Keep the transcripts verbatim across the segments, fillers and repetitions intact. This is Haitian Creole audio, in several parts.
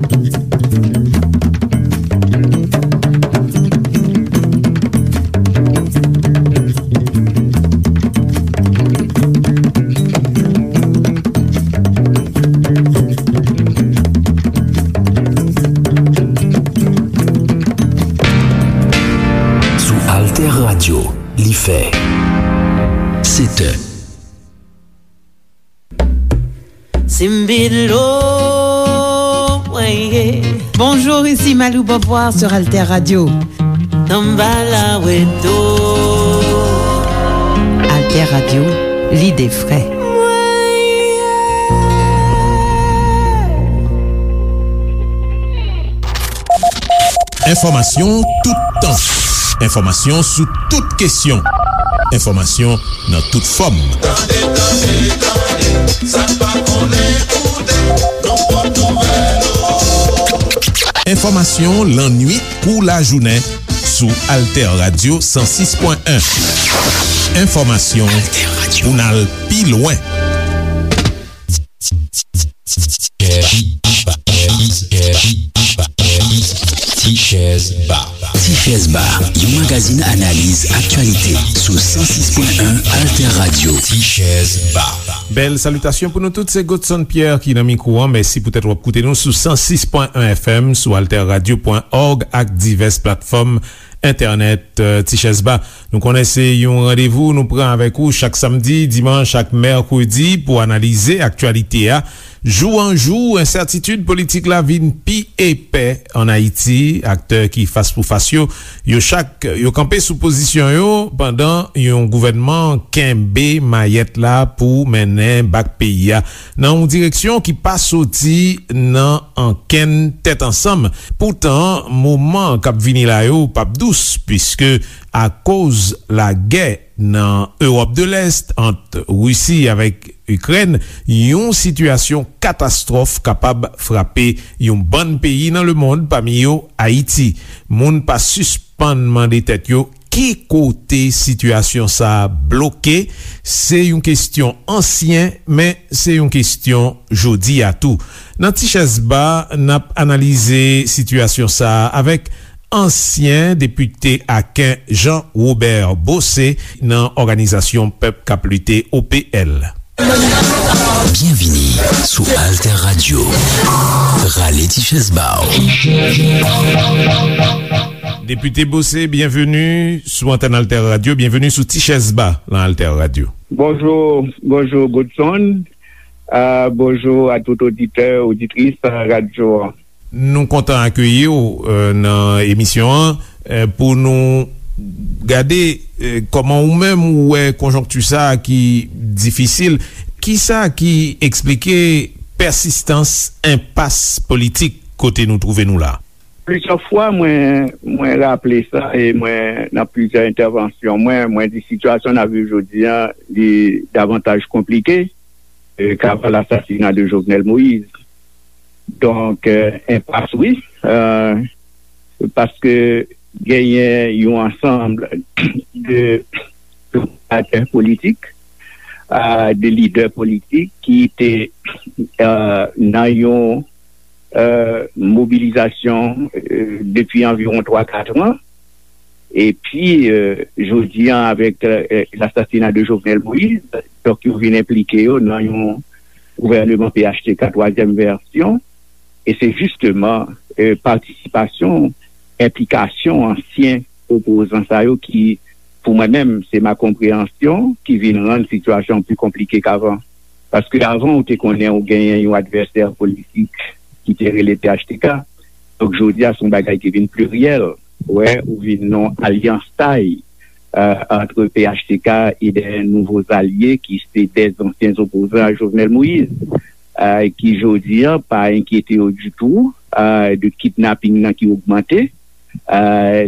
Sou Alter Radio, li fè sèt è. Simbilo, mwen ye. Bonjour, ici Malou Beauvoir sur Alter Radio. Tanbala Weto. Alter Radio, l'idée frais. Enfòmasyon toutan. Enfòmasyon sou tout kesyon. Enfòmasyon nan tout fòm. Tande, tande, tande, sa n pa konnen koute, nou pot nouvèl yo. Enfòmasyon lannwit kou lajounen sou Alter Radio san sis pwen en. Enfòmasyon pou n al pi lwen. Tichèz Ba. Tichèz Ba, yon magazin analiz aktyalite sou san sis pwen en Alter Radio. Tichèz Ba. Bèl salitasyon pou nou tout, se Godson Pierre ki nan mikwo an. Mèsi poutèt w ap koute nou sou san sis pwen en F M, sou alter radio pwen org ak divès platfòm entènèt, eh, Tichèz Ba. Nou konnen se yon randevou nou pran avèk ou chak samdi, dimanch ak mèkredi pou analize aktyalite a. Jou an jou, ensètitid politik la vin pi epè ann Ayiti. Aktè ki fas pou fas yo, yo chak, yo kanpe sou pozisyon yo pandan yon gouvènman kenbe mayèt la pou mennen bak peyi a nan yon direksyon ki pa soti nan ankenn tèt ansanm. Poutan, moman k ap vini la yo p ap dous, piske akoz lagè nan Ewòp de Lès ant Risi avèk Ikrèn, yon sitiyasyon katastwòf kapab frape yon bann peyi nan lemonn, pami yo Ayiti. Moun pa sispann mande tèt yo ki kote sitiyasyon sa a bloke. Se yon kesyon ansyen, men se yon kesyon jodi a tou. Nan Tichèz Ba, n ap analize sitiyasyon sa a avèk ansyen depite aken Jean Robert Bossé nan Òganizasyon Pèp k ap Lite, O P L. Byenvini sou Alter Radio. Rale ti chèz ba w. Depite Bossé, byenveni sou antèn Alter Radio, byenveni sou Ti Chèz Ba nan Alter Radio. Bonjou, bonjou Godson. Ah, bonjou a tout oditè, oditris, ah, radyo an. Nou kontan akeyi w, eh, nan emisyon an, eh, pou nou gade, eh, kòman ou menm ou wè konjonkti sa a ki difisil. Kisa ki eksplike pèsistans enpas politik kote nou twouve nou la? Plizyè fwa, mwen, mwen raple sa, e mwen, nan plizyè entèvansyon mwen, mwen di sitiyasyon n ap viv jodi a, li davantaj konplike, e, ke avan lasasina de Jovenel Moïse. Donk, e, enpas, wi, e, paske genyen yon ansanm de, de aktè politik, e, de lidè politik ki te, e, nan yon, e, mobilizasyon, e, depi anviwon twa, kat an. Epi, e, jodi an, avèk, e, lasasina de Jovenel Moïse, donk, yo vin enplike yo nan yon gouvèneman P H T K twazyèm vèsyon. E se jisteman, e, patisipasyon, enplikasyon ansyen opozan sa yo ki, pou mwen menm, se ma konpreyansyon ki vin rann sitiyasyon an pi konplike k avan. Paske avan, ou te konnen ou genyen yon advèsè politik ki te rele P H T K. Donk, jodi a, se yon bagay ki vin pliryèl. Ou wè, ou vin nan alyans tay, e, ant P H T K e de nouvo alye ki se de ansyen opozan a Jovenel Moïse, e, ki jodi a pa enkyete yo ditou, e, de kidnaping nan ki ogmante. E,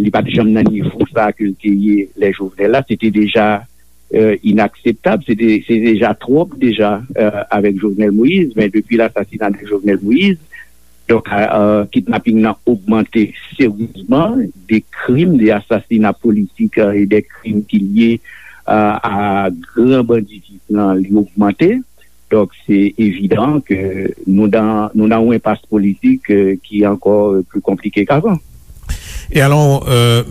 li pa t janm nan nivo sa ke l te ye lè Jovenel la. Se te deja, e, inakseptab. Se te, se deja twòp deja, e, avèk Jovenel Moïse. Men depi lasasina de Jovenel Moïse, donk, e, e, kidnaping nan ogmante seryezman. De krim, de asasina politik, e, e de krim ki lye, e, a gran banditis nan, li ogmante. Donk, se evidan ke nou nan, nou nan yon enpas politik, euh, ki ankò, euh, pli konplike k'avan. E alò, euh,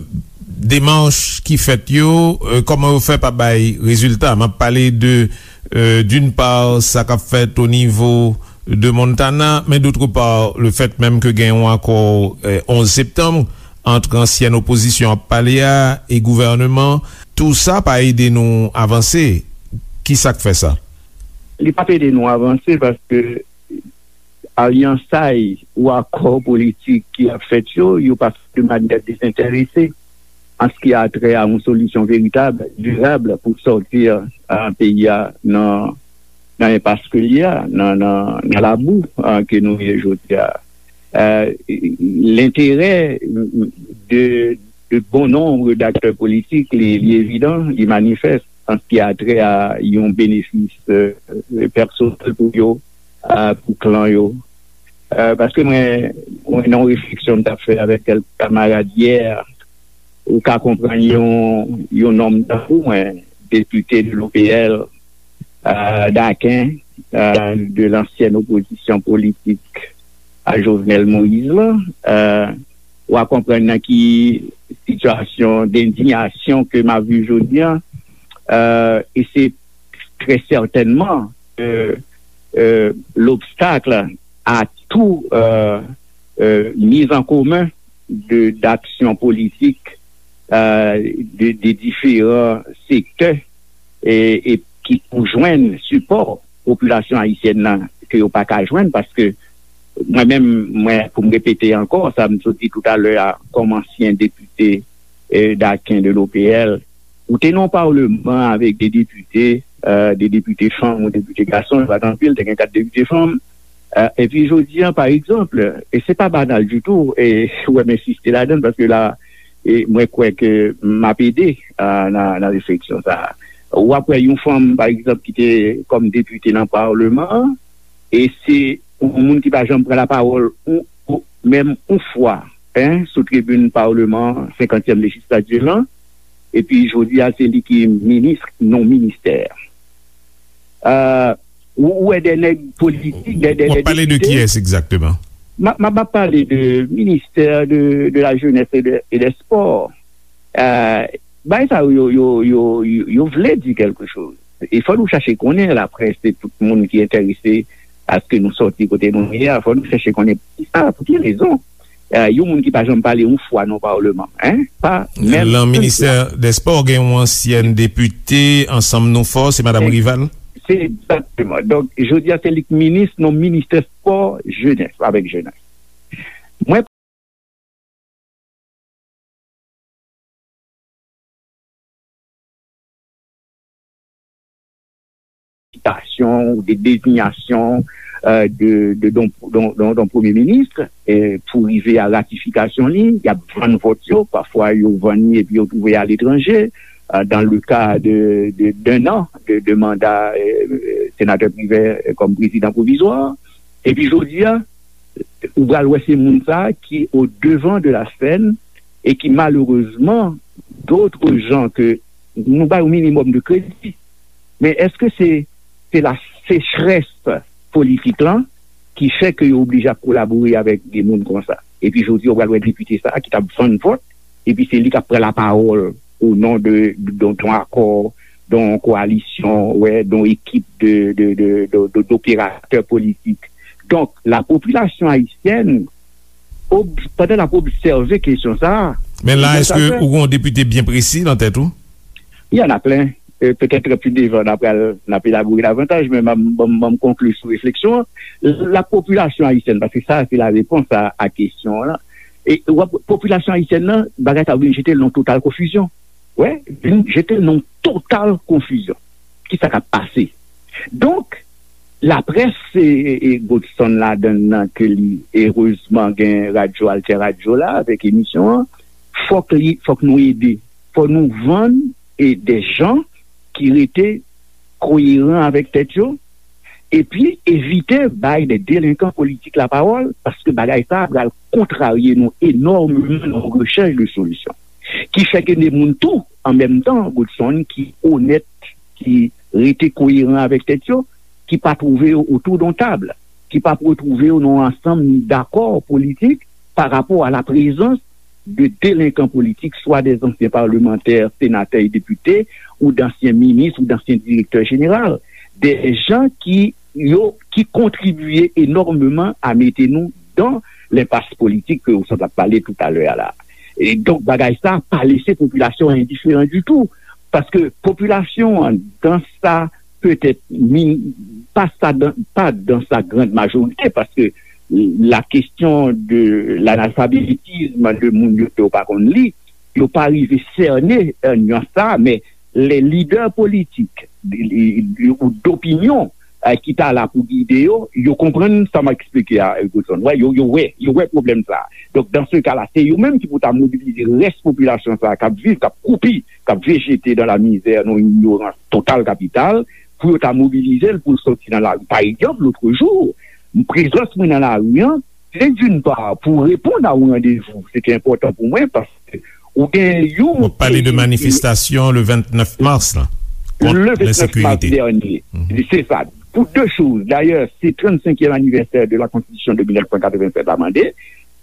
demach ki fèt yo, euh, kòman yo fè pa bay rezilta? M ap pale de, euh, d'une part, sa k ap fèt o nivo de Montana, men d'autre part, le fait même ke gen yon akò, euh, onz septanm, ant ansyèn opozisyon ap pale a e gouvèneman, tou sa pa ede nou avanse. Ki sa k fè sa? Li p ap ede nou avanse paske alyansay ou akò politik ki ap fèt yo, yo pa fèt de manyè dezenterese an ce qui a trait à yon solisyon veritab, dirab pou sòti, euh, peyi a nan, nan enpas ke l ye a, nan, nan, nan labou, euh, ke nou ye jodi a. Euh, lenterè de, de bon nonb d'aktè politik, li, li evidan, li manifès an ce qui a trait à yon benefis, euh, pèsonèl pou yo, euh, pou klan yo. Euh, paske mwen, mwen nan yon refleksyon m t ap fè avèk kèk kamarad yè, ou ka konprann yon, yon nonm tankou mwen, depite de l'O P L, euh, Daken, euh, de lansyen opozisyon politik a Jovenel Moïse la, euh, w a konprann nan ki sitiyasyon dendiyasyon ke m ap viv jodi a, euh, e se trè sètènman, euh, euh, l'obstacle à tout, euh, euh, mise en commun de, d'action politique, euh, de, de différents secteurs e, e ki pou jwenn sipò popilasyon ayisyèn nan ke yo pa ka jwenn, paske mwen menm, mwen, pou m repete ankò sa m sot di toutalè a, kòm ansyen depite, eh, Daken de l'O P L, ou te nan yon palman avèk de depite, eh, de depite fanm ou depite gason, yo pa t anpil, te gen kat depite fanm. Eh, epi jodi a, pa egzanp, e se pa banal ditou, e ou wè m ensiste ladan l, paske la, e mwen kwè ke m ap ede, eh, nan, nan refleksyon sa a. W ap wè yon fanm, pa egzanp, ki te kòm depite nan palman an, e se yon moun ki pa janm pran lapawòl, ou, ou, menm yon fwa, en, sou tribin palman an, senkantyèm lejislati lan, epi jodi a, se li ki minis non ministè. Euh, ou, ou wè de nèg politik, de, de, W ap de pale de depite. Kiyès egzakteman? M ap, m ap pale de ministè de, de la jeunesse et de, et des sports. Euh, bagay sa yo, yo, yo, yo, yo vle di kèlke choz. E fò nou chache konnen, laprès, se tout moun ki enterese a ce que nou sòti kote nou ye a, fò nou chache konnen poukisa, pou ki rezon. Eh, yon moun ki pa janm pale yon fwa nan palman, en, pa menm yon fwa. Lan ministè dè spò, gen yon ansyèn depite Ansanm Nou Fò, se madanm Rival. Se egzakteman. Donk, jodi a, se li k minis nan ministè spò, jenès, avèk jenès. Mwen sitasyon ou de dezinyasyon, euh, de, de, don, don, don, don premye minis, eh, pou rive a ratifikasyon li, y ap vann vòt yo, pafwa yo vann li epi yo twouve aletranje, euh, dans le cas de, de, d'un an de, de manda, eh, senatè Privè, eh, kòm prezidan pwovizwa. Epi jodi a, ou pral wè se moun sa a ki au devant de la scène e ki malerezman, d'autres gens ke nou ba yo minimòm de kredi. Men èske se, se la sechrès politik lan ki fè ke yo oblije ap kolabore avèk de moun konsa? Epi jodi a, ou pral wè depite sa a ki t ap vann vòt, epi se li k ap pran lapawòl o non de, de, de, de yon akò, de yon koalisyon, wè, de yon ekip de, de, de, de, de, d'operatè politik. Donk, la popilasyon ayisyèn, ob-, pandan n ap obsève kesyon sa a, Men la, èske ou gen yon depite byen presi nan tèt ou? Il y en a plein. Euh, peut-être plus devant, n ap pral, n ap elabore davantaj, men m, m, m, m konkli sou refleksyon an. La popilasyon ayisyèn, paske sa, se la repons a, a kesyon an la. E w ap, popilasyon ayisyèn nan, bagay sa vin jete l nan total konfizyon. Wè, vin jete l nan total konfizyon. Kisa k ap pase? Donk, laprès, e, e, e Godson ladan l nan ke li, erezman, gen radyo Alter Radio la, avèk emisyon an, fòk li, fòk nou ede. Fò nou vann, e, de jan ki rete koyeran avèk tèt yo, epi evite bay de delenkan politik lapawòl, paske bagay sa a pral kontrarye nou enòmeman nan rechèch de solisyon. Ki fè ke de moun tou, an menm tan, Godson, ki onèt, ki rete koyeran avèk tèt yo, ki pa twouve yo otou d on tab, ki pa retwouve yo nan yon ansanm dakò politik pa rapò a la prezans de delenkan politik, swa dè zansyen palmantè, senatè e depite, ou dansyen minis, ou dansyen direktè jeneral, dè jan ki yo ki kontribye enòmeman a mete nou dan lenpas politik ke ou sot ap pale toutalè a la. E donk, bagay sa pa lese popilasyon an endiferan ditou, paske popilasyon an, dan sa petèt min-, pa sa dan, pa dan sa grand majorité, paske la question de l'analphabétisme de moun yo ke yo pa konn li, yo pa rive sène, euh, nyans sa, men lè lidè politik ou dopinyon, euh, ki ta la pou gide yo, yo konprann sa m ap eksplike a, Godson. Wè, yo, yo wè, yo wè pwoblèm sa. Donk, dans ce cas-là, se yo menm ki pou ta mobilize rès popilasyon sa k ap viv, k ap koupi, k ap vejete dans la misère, nan yon ignorans total kapital, pou yo ta mobilize l pou l soti nan lari. Pa egzanp, lotrejou, prezans mwen nan lari an, se d'une part pou reponn a yon randevou, se te enpòtan pou mwen, paske ou gen yon... W ap pale de manifestasyon le vennèf mas la, kont lensekirite. Le vennèf mas dènye. Se sa. Pou de choz. Dayè, se trannsenkyèm anivèsè de la Constitution de mil nèf san katrevennsèt la mande,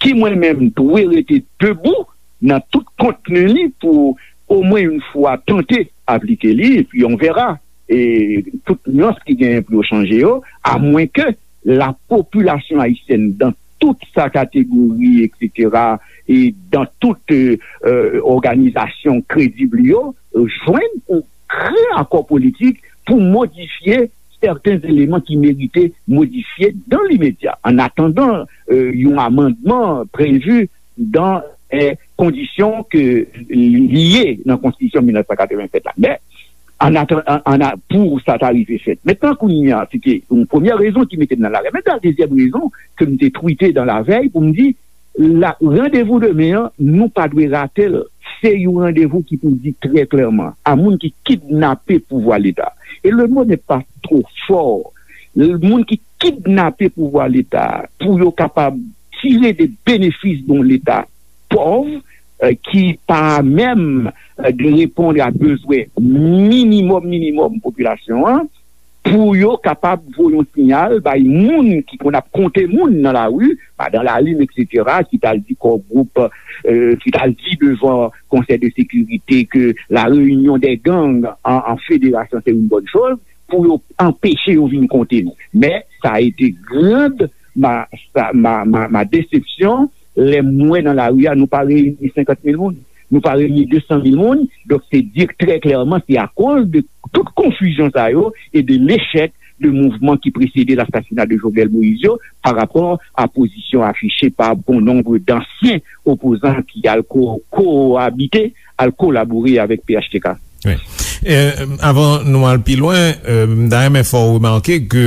ki mwen menm dwe rete debou nan tout kontni li pou omwen yon fwa tante aplike li, epi on verra, e tout nyans ki genyen pou yo chanje yo, amwenke la popilasyon ayisyèn, dan tout sa kategori, etsetera, e dan tout, euh, euh, òganizasyon kredib yo, jwenn yon gran akò politik pou modifye sèten eleman ki merite modifye dan limedya, an atandan, euh, yon amandman previ dan, euh, kondisyon ke li ye nan Konstitisyon mil nèf san katrevennsèt la. Men, an atan-, an, an a-, pou sa ta rive fèt. Mentnan, kounye a, se te yon premyè rezon ki mete m nan lari. Mentnan, dezyèm rezon ke m te twite dan lavèy pou m di, la, randevou demen an, nou pa dwe rate l. Se yon randevou ki pou di trè klèman a moun ki kidnape pouvwa Leta. Et le mot n'est pas trop fort. Moun ki kidnape pouvwa Leta pou yo kapab tire de benefis de yon Leta pòv, euh, ki pa menm, euh, de reponn a bezwen minimòm, minimòm popilasyon an, pou yo kapab voye yon siyal bay moun ki konn ap konte moun nan lari, Madan Lalin, etsetera, ki t al di Core Group, euh, ki t al di devan Konsèy de Sekirite ke la réunion des gangs en, en fédération, c'est une bonne chose, pou yo anpeche yo vin konte nou. Men, sa a été grande ma, sa, ma, ma, ma déception, lè m wè nan lari a, nou pa reyini senkant mil moun, nou pa reyini de san mil moun. Donk, se di trè klèman, se akoz de tout konfizyon sa yo e de lechèk de mouvman ki presede lasasina de Jovenel Moïse yo, pa rapò a pozisyon afiche pa bon nonb dansyen opozan ki al ko-, koabite, al kolabore avèk P H T K. Wi. E, avan nou al pi lwen, e, m ta renmen fè w remake ke,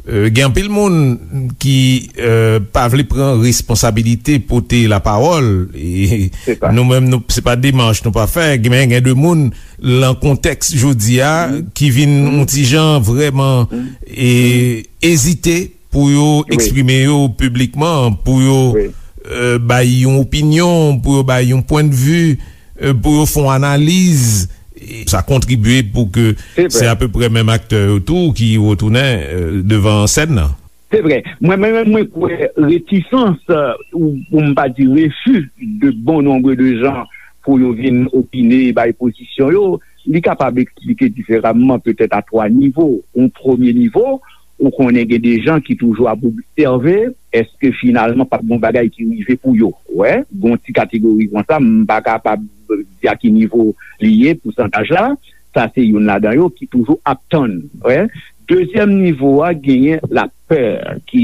e, gen anpil moun ki, e, pa vle pran responsabilite pote lapawòl. E nou menm, nou, se pa demach nou pa fè. Gen, men gen de moun, lan kontèks jodi a, ki vin yon ti jan vrèman, e, ezite pou yo eksprime yo piblikman, pou yo, e, bay yon opinyon, pou yo bay yon pwennvi, e, pou yo fè yon analiz. E sa kontribye pou ke se apeprè menm aktè yo tou ki retounen, e, devan sèn nan. Se vrè. Mwen, mwen menm, mwen kwè retisans, e, ou pou m pa di refi de bon nonb de jan pou yo vin opine, bay pozisyon yo, li kapab eksplike diferaman, petèt a twa nivo. Yon premye nivo, ou konnen gen de jan ki toujou ap obsève, èske finalman p ap gen yon bagay ki rive pou yo? Wè, gen yon ti kategori konsa, m pa kapab di a ki nivo li ye, pousantaj la, sa se youn ladan yo ki toujou ap tann. Wè. Dezyèm nivo a, genyen lapè ki,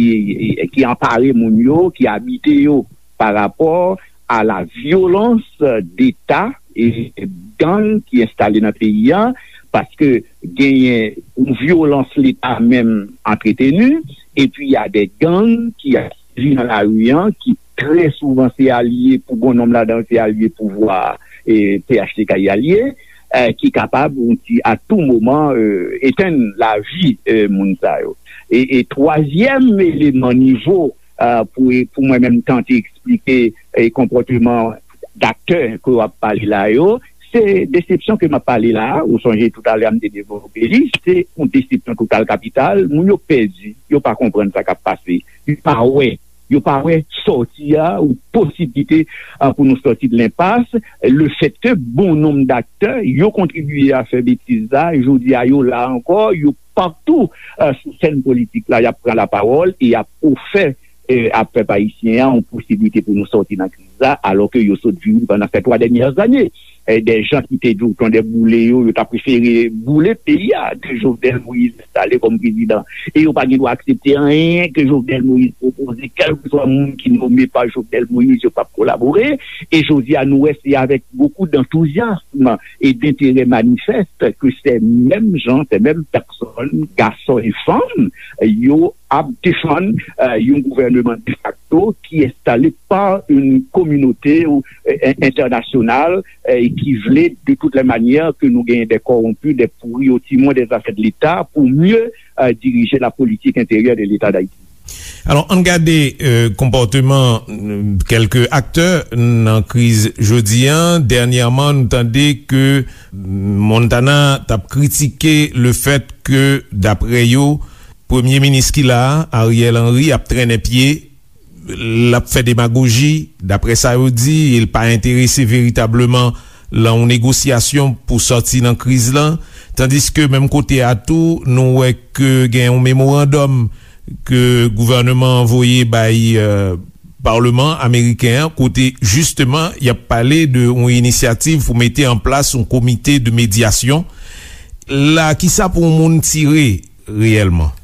ki anpare moun yo, ki abite yo pa rapò a la vyolans deta e gang ki enstale nan peyi a, paske genyen yon vyolans Leta menm antreteni, epi y a de gang ki ap sèvi nan lari a, ki trè souvan se alye, pou bon nonb ladan yo, se alye pouvwa a, e P H T K y alye, e, ki kapab, yon ti, a tou moman, e, etenn lavi, e, moun sa yo. E, e twazyèm eleman nivo, e, pou, pou mwen menm tante eksplike, e, konpòteman daktè ke w ap pale la yo, Se desepsyon ke m ap pale la a, ou sonje toutalè a m te devlope li, se yon desepsyon total kapital. Moun yo pèdi, yo pa konprann sa k ap pase, yo pa wè, yo pa wè sòti a ou posiblite a, pou nou sòti de lenpas. Lefètke bon nonb daktè yo kontribye a fè betiz la, jodi a yo la ankò, yo patou a, sou sèn politik la, y ap pran lapawòl e y ap ofè e, a pèp ayisyen an yon posiblite pou nou sòti nan kriz la, alòke yo sot vini pandan sèt twa dènyè zane. E, de jan ki te di w tonde boule yo, yo ta prefere boule peyi a ke Jovenel Moïse enstale kòm prezidan. E yo pa gen dwa aksepte anyen ke Jovenel Moïse pwopoze, kèlkeswa moun ki nome pa Jovenel Moïse, yo p ap kolabore. E jodi a, nou wè se avèk bokou d'antouzyasm e d'enterè manifès ke se menm jan, se menm pèsòn, gason e fanm, yo ap defann e, yon gouvèneman defakto ki enstale pa yon kominote e, entènasyonal e, ki vle de toutes les manières ke nou genyen des corrompus, des pourris au timon des affaires de l'État pour mieux e, diriger la politique intérieure de l'État d'Haïti. Alò, ann gade e, konpòteman e, kèlke aktè nan kriz jodi a. Dènyèman, nou tande ke Montana t ap kritike lefèt ke, daprè yo, premye minis ki la a, Ariel Henry, ap trennen pye, l ap fè demagoji, daprè sa yo di, e l pa enterese veritableman lan yon negosyasyon pou sòti nan kriz lan. Tandiske menm kote a tou, nou wè ke gen yon memorandòm ke gouvèneman an voye bay e, Palman ameriken an, kote jisteman y ap pale de yon inisyativ pou mete an plas yon komite de medyasyon. La, kisa pou yon moun tire reyèlman?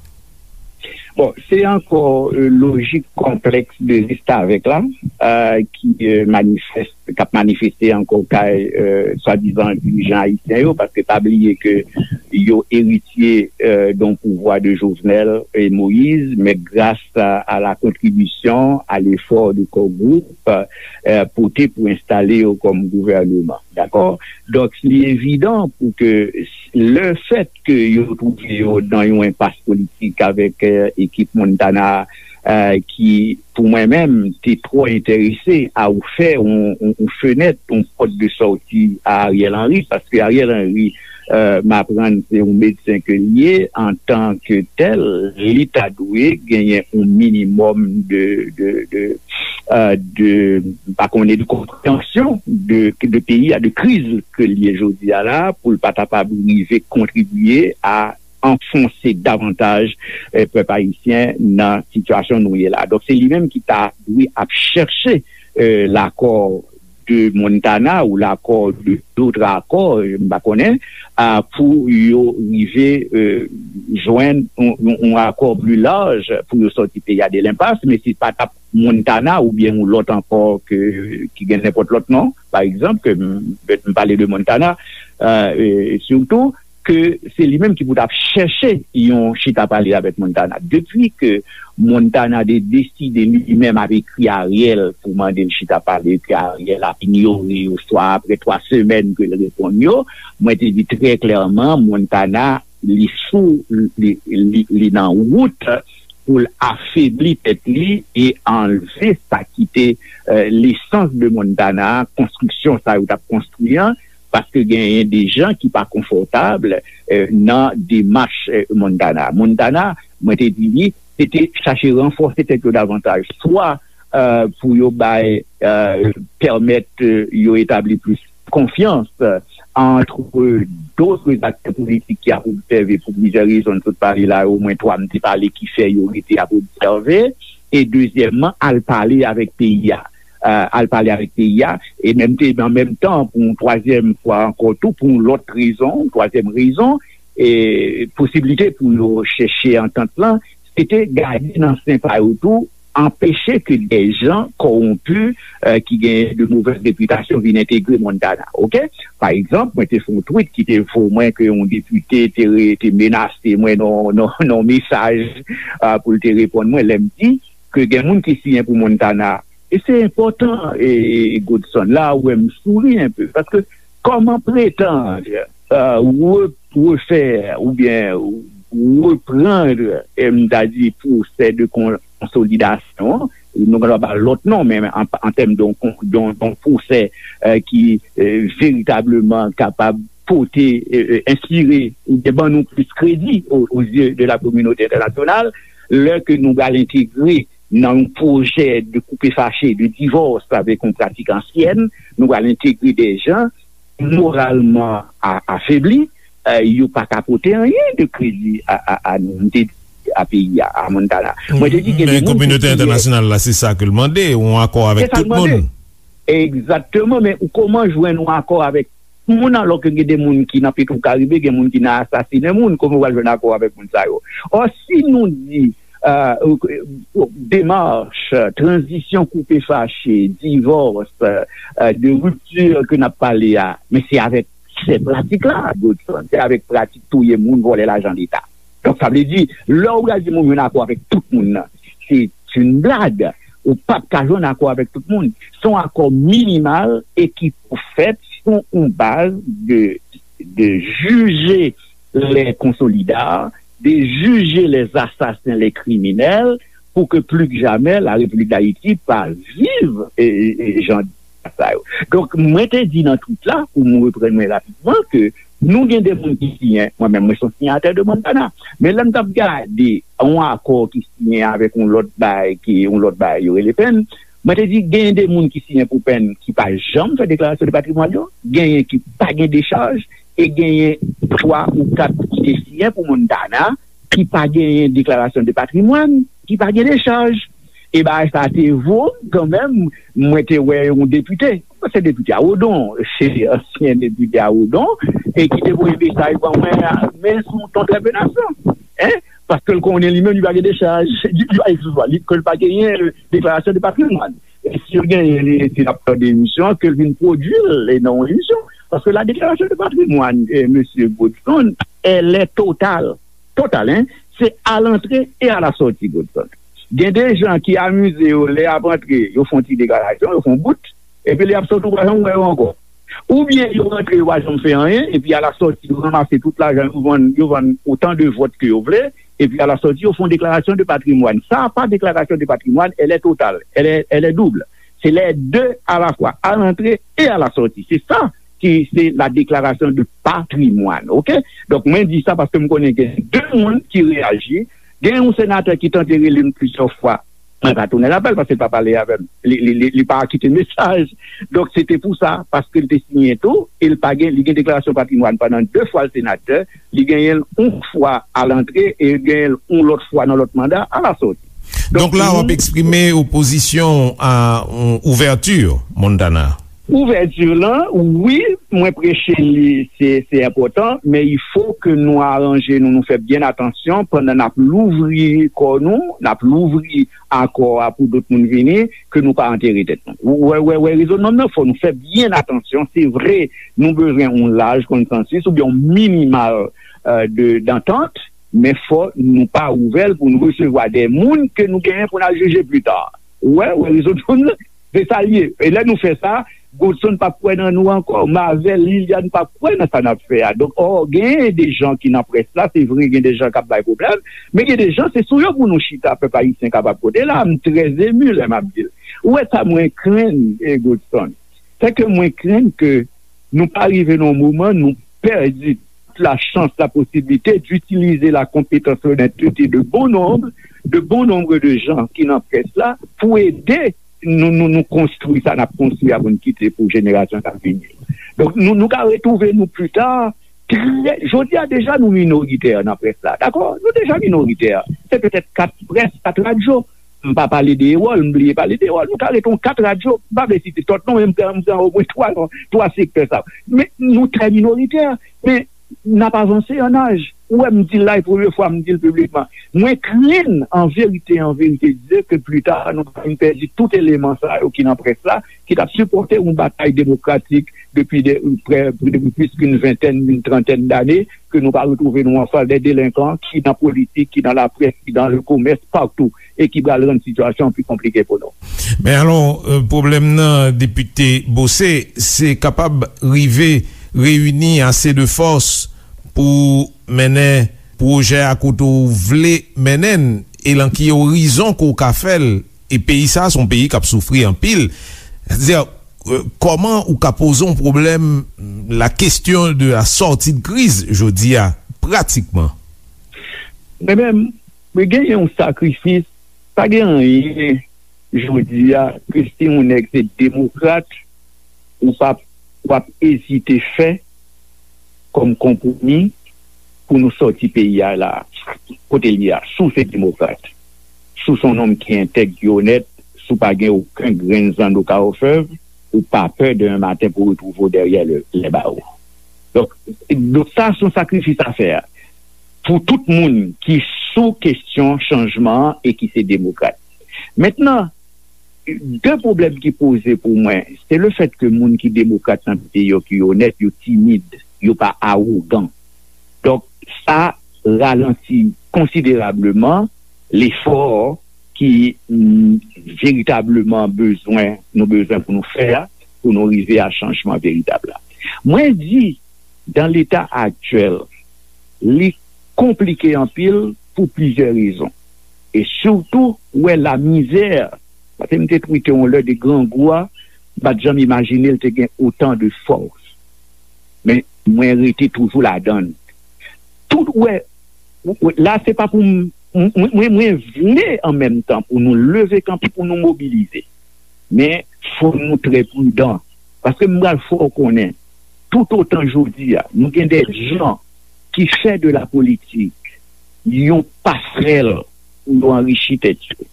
Bon, se ankò e, lojik konplèks de restavèk la e, ki e, manifeste k ap manifeste ankò kay swadizan dirijan ayisyen yo, paske pa bliye ke yo eritye e, d'un pouvoir de Jovenel et Moïse, mais grâce à, à la contribution, à l'effort de Core Group e, pote pou enstale yo kòm gouvèneman. Dakò? Donk, li evidan pou ke lefèt ke yo twouve yo nan yon enpas politik avèk e, ekip Montana e, ki pou mwen menm, te twò enterese a ofè yon, yon, yon fenèt, yon pòt de sòti a Ariel Henry, paske Ariel Henry, e, m aprann se yon medsen ke l ye, antan ke tèl, li ta dwe genyen yon minimòm de, de, de, e, de, m pa konnen, de konpreyansyon de, de peyi a, de kriz ke l ye jodi a la, pou l pa kapab rive kontribye a anfonse davantaj e, pèp ayisyen nan sitiyasyon nou ye la. Donk, se li menm ki ta dwe ap chèche e, l'accord de Montana ou l'accord de d'autres accords, e, m pa konnen, a, pou yo rive e, jwenn yon, yon, yon accord plus large pou yo sòti peyi a de lenpas, men si pa t ap Montana oubyen yon lòt ankò ke, ki gen nenpòt lòt non, pa egzanp, ke m, m pale de Montana, e, e, sitou, ke se li menm ki pou t ap chèche yon chita pale avèk Montana. Depi ke Montana te deside li menm ap ekri Ariel pou mande l chita pale, ke Ariel ap inyore, oswa apre twa semèn ke l reponn yo, mwen te di trè klèman, Montana, li sou, li, li, li nan wout pou l afebli tèt li e anlve sa ki te e, lesans de Montana, konstriksyon sa yo t ap konstwi an, paske genyen de jan ki pa konfòtab e, nan demach e, Montana. Montana, mwen te di li, se te chache ranfòse tèt yo davantaj, swa e, pou yo bay, e, pèmèt e, yo etabli plis konfyans e, entre d'autres acteurs politiques ki ap obsève pou plizyè rezon, m sot pale la, omwen twa m te pale ki fè yo rete ap obsève, e dezyèmman, al pale avèk peyi a. E, al pale avèk peyi a, e menm te, an menm tan, pou yon twazyèm fwa ankò tou, pou yon lòt rezon, twazyèm rezon, e posiblite pou yo chèche antant lan, se te gade nan sen pa yo tou, anpeche ke de jan kòwonpi e, ki gen de movèz repitasyon vin entegre Montana. Oke? Pa egzanp, mwen te fè yon tweet ki te vo mwen ke yon depite te, re, te menase mwen nan, nan, nan mesaj e, pou l te reponn mwen lè m di ke gen moun ki siyen pou Montana. E se enpòtan, e, e, Godson, la ou wè m souri enpe, paske kòman pretann e, re, refè oubyen reprann, e, m ta di, pwosè de kon, konsolidasyon an, nou kapab ba l lòt non, men an, an tèm de yon, de yon, de yon pwosè, euh, ki, euh, veritableman kapab pote, euh, euh, enspire oubyen ban nou plis kredi o, o zye de la kominote entènasyonal, lè ke nou pral entegre nan yon pwojè de koupe fache, de divòs avèk yon pratik ansyèn, nou pral entegre de jan moralman a, afebli, euh, yo pa ka pote anyen de kredi a, a, a nou. M te di a peyi a, a Montana. Mwen te di gen de Men moun ki kominote siyen entènasyonal la, se sa ke l mande, yon akò avèk tout moun. Se sa l mande. Egzakteman, men ou kòman jwenn yon akò avèk moun, alò ke gen de moun ki nan Petwokaribe, gen moun ki nan asasinen moun, kòman w al jwenn akò avèk moun sa yo? Ò, si nou di, euh, demach, tranzisyon koupe fache, divòs, euh, de ripti ke n ap pale a, men se avèk sè pratik la, Godson, se avèk pratik touye moun, vòlè lajan Leta. Donk, sa vle di, lè w pral di moun jwenn akò avèk tout moun nan, se yon blag. Ou p ap ka jwenn akò avèk tout moun. Se yon akò minimal e ki pou fèt sou yon baz de, de juger les consolidats, de juger les assassins, les criminels, pour que plus que jamais la République d'Haïti pa viv e, e, e jan sa yo. Donk, mwen te di nan tweet la, pou m reprann mwen rapidman, ke nou gen de moun ki siyen, mwen menm, mwen se yon siyatè de Montana. Men lè m t ap gade yon akò ki siyen avèk yon lòt bay, ki yon lòt bay, yo rele pen, mwen te di, genyen de moun ki siyen pou pen ki pa janm fè deklarasyon de patrimwàn yo, genyen ki pa gen dechaj, e genyen twa ou kat ki te siyen pou Montana, ki pa genyen deklarasyon de patrimwàn, ki pa gen dechaj. E bagay sa te vo m kanmenm, mwen te wè yon depite, se depite a Odon, se ansyen depite a Odon, e ki te voye mesaj ban mwen, men sou ton trèpenasyon. Hein? Paske l konnen li menm, li pa gen dechaj, li, li pa, eksplike, li, ke l pa genyen, euh, deklarasyon de patrimwàn. E si l genyen, li, si l ap fè de emisyon, ke l vin pwodui l, e nan yon emisyon. Paske la déclaration de patrimoine, euh, mesye Godson, elle est totale. Totale, hein? Se a lantre e a la sòti, Godson. Gen de jan ki amize yo, lè y ap antre, yo fè yon ti deklarasyon, yo fè yon bout, epi lè y ap sòti, ou pa janm wè yo ankò. Oubyen yo rantre, yo pa janm fè anyen, epi a la sòti, yo ranmase tout lajan, yo vann, yo vann otan de vòt ke yo vle, epi a la sòti, yo fè yon deklarasyon de patrimwàn. Sa pa deklarasyon de patrimwàn, elle est totale, elle est, elle est double. Se les deux à la fois, à l'entrée et à la sortie. Se sa ki se la déclaration de patrimoine, oke? Donk, mwen di sa paske m konnen gen de moun ki reyaji. Gen yon senatè ki tante rele m plizyè fwa. Mwen pa tounen apèl paske l pa pale avè m. Li, li, li, li pa kite mesaj. Donk, se te pou sa, paske l te siyen tou, e l pa gen, li gen deklarasyon patrimwàn pandan de fwa l senatè, li genyen l yon fwa a lantre e genyen l yon lòt fwa nan lòt manda a la sòti. Donk, donk, la, w ap eksprime opozisyon a, euh, ouvèti Montana. Ouvèti lan, wi, mwen preche li, se, se enpòtan, men il faut que nou aranje nou, nou fè byen atansyon pandan n ap louvri kò nou, n ap louvri akò a pou dòt moun vini, ke nou pa antere tèt nou. Ou wè, wè, wè, rezonman nan, fò nou fè byen atansyon. Se vre, nou bezwen yon laj konsansis oubyen yon minimal, euh, de, dantant, men fò nou pa ouvè l pou nou resevwa de moun ke nou genyen pou n al jije pli ta. Ou wè, wè, rezonman nan, se sa l ye. E lè nou fè sa, Godson p ap kwè nan nou ankò. M avè l, Liliane p ap kwè nan sa n ap fè a. Donk, ò, gen de jan ki nan près la, se vre, gen de jan k ap bay pwoblèm, men gen de jan, se sou yo pou nou chita, pèp ayisyen kapab kote la. M trè emu lè m ap di l. Ou wè sa mwen krenn, e Godson, se ke mwen krenn ke nou pa rive nan yon moman, nou pèdi la chance, la possibilité d'utiliser la compétence, l'honnêteté de bon nombre, de bon nombre de gens ki nan près la pou ede nou, nou, nou konstwi sa n ap konstwi a pou n kite pou jenerasyon k ap vini. Donk, nou, nou ka retwouve nou pli ta. Trè, jodi a deja nou minoritè nan près la, dakò? Nou deja minoritè. Se petèt kat près, kat radyo. M pa pale de Ewòl, m bliye pale de Ewòl. Nou ka rete yon kat radyo, m pa vle site tout non, men m pran, m pran omwen twa non, twa sektè sa yo. Men nou trè minoritè, men n ap avanse an aj. Ou wè, m di l la, e premye fwa m di l piblikman. Mwen krenn, an verite, an verite, di ke pli ta, nou ka vin pèdi tout eleman sa yo ki nan près la, ki t ap sipòte yon batay demokratik depi de, prè, depi plis ki yon ventèn, yon trantèn dane, ke nou pa retwouve nou anfas de delenkan ki nan politik, ki nan laprès, ki nan lekomès, patou, e ki pral rann sitiyasyon an pi konplike pou nou. Men alò, euh, pwoblèm nan, Depite Beaucé, se kapab rive reyini ase de fòs pou mennen pwojè a kote w vle mennen l, e lan ki orizon ke w ka fè l, E peyi sa a se yon peyi k ap soufri anpil. Sètadi, euh, kòman ou ka poze yon pwoblèm, la question de la sortie de crise, jodi a, pratikman? Mwen menm, mwen genyen yon sakrifis, pa gen anyen jodi a, ke si yon nèg se demokrat, ou p ap, w ap ezite fè kòm konpwomi pou nou sòti peyi a la, kote l ye a. Si w se demokrat, si w se yon nonm ki entèg, ki onèt, si w pa gen okenn grenn zanno ka ofèv, ou pa pè demen maten pou retwouve w dèyè le, les barreaux. Donk, donk sa se yon sakrifis a fè a pou tout moun ki sou kesyon chanjman an e ki se demokrat. Mentnan, de pwoblèm ki poze pou mwen, se le fèt ke moun ki demokrat nan peyi yo, ki onèt, yo timid, yo pa awogan. Donk, sa ralanti konsiderableman lefò ki mm, veritableman bezwen, nou bezwen pou nou fè a, pou nou rive a chanjman veritab la. Mwen di, dan leta aktyèl, li konplike anpil pou plizyè rezon. E sitou, ou wè lamizè, paske m te twite yon lè de grangou a, m pa t janm imajine l te gen otan de fòs. Men, mwen rete toujou ladan l. Tout, ou wè, ou, ou, la, se pa pou m, mwen, mwen, mwen vle an menm tan pou nou leve kanpe, pou nou mobilize. Men, fò nou trè pridan. Paske m pral fè w konnen, tout otan jodi a, nou gen de jan ki fè de la politik yon pasrèl pou yo anrichi tèt yo,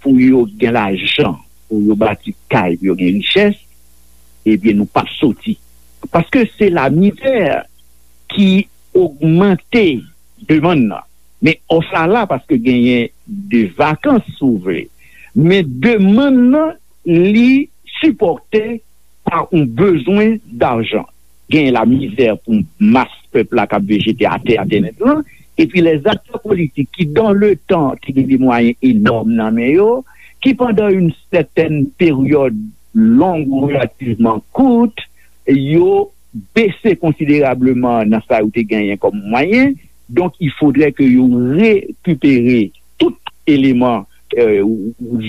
pou yo gen lajan, pou yo bati kay, pou yo gen richès, ebyen, nou p ap soti. Paske se lamizè ki ogmante demann nan. Men òf la la paske genyen de vakans, si w vle. Men demann nan, li sipòte pa yon bezwen dajan. Genyen lamizè pou mas pèp la k ap vejete atè, atè nèt lan. Epi lèzaktè politik ki, dans le temps, te gen de mwayen enòm nan men yo, ki pandan yon sètèn peryòd long ou relativman kout, yo bese konsiderableman nan sa yo te genyen kòm mwayen. Donk, il faudrait que yo rekipere tout eleman, euh,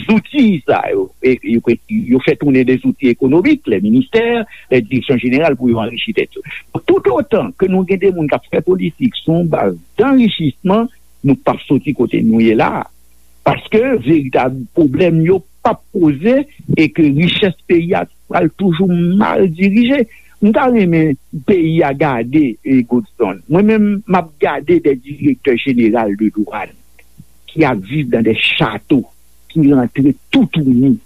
zouti sa yo. E, yo, yo fè tounen de zouti ekonomik, les ministères, les directions générales, pou yo anrichi tèt yo. Tout otan ke nou gen de moun k ap fè politik sou yon baz danrichisman, nou p ap soti kote nou ye la a. Paske veritab pwoblèm yo p ap poze e ke richès peyi a pral toujou mal dirije. M ta renmen peyi a gade, e, Godson. Mwen menm, m ap gade de direktè jeneral de dwàn ki ap viv dan de chato, ki rantre toutouni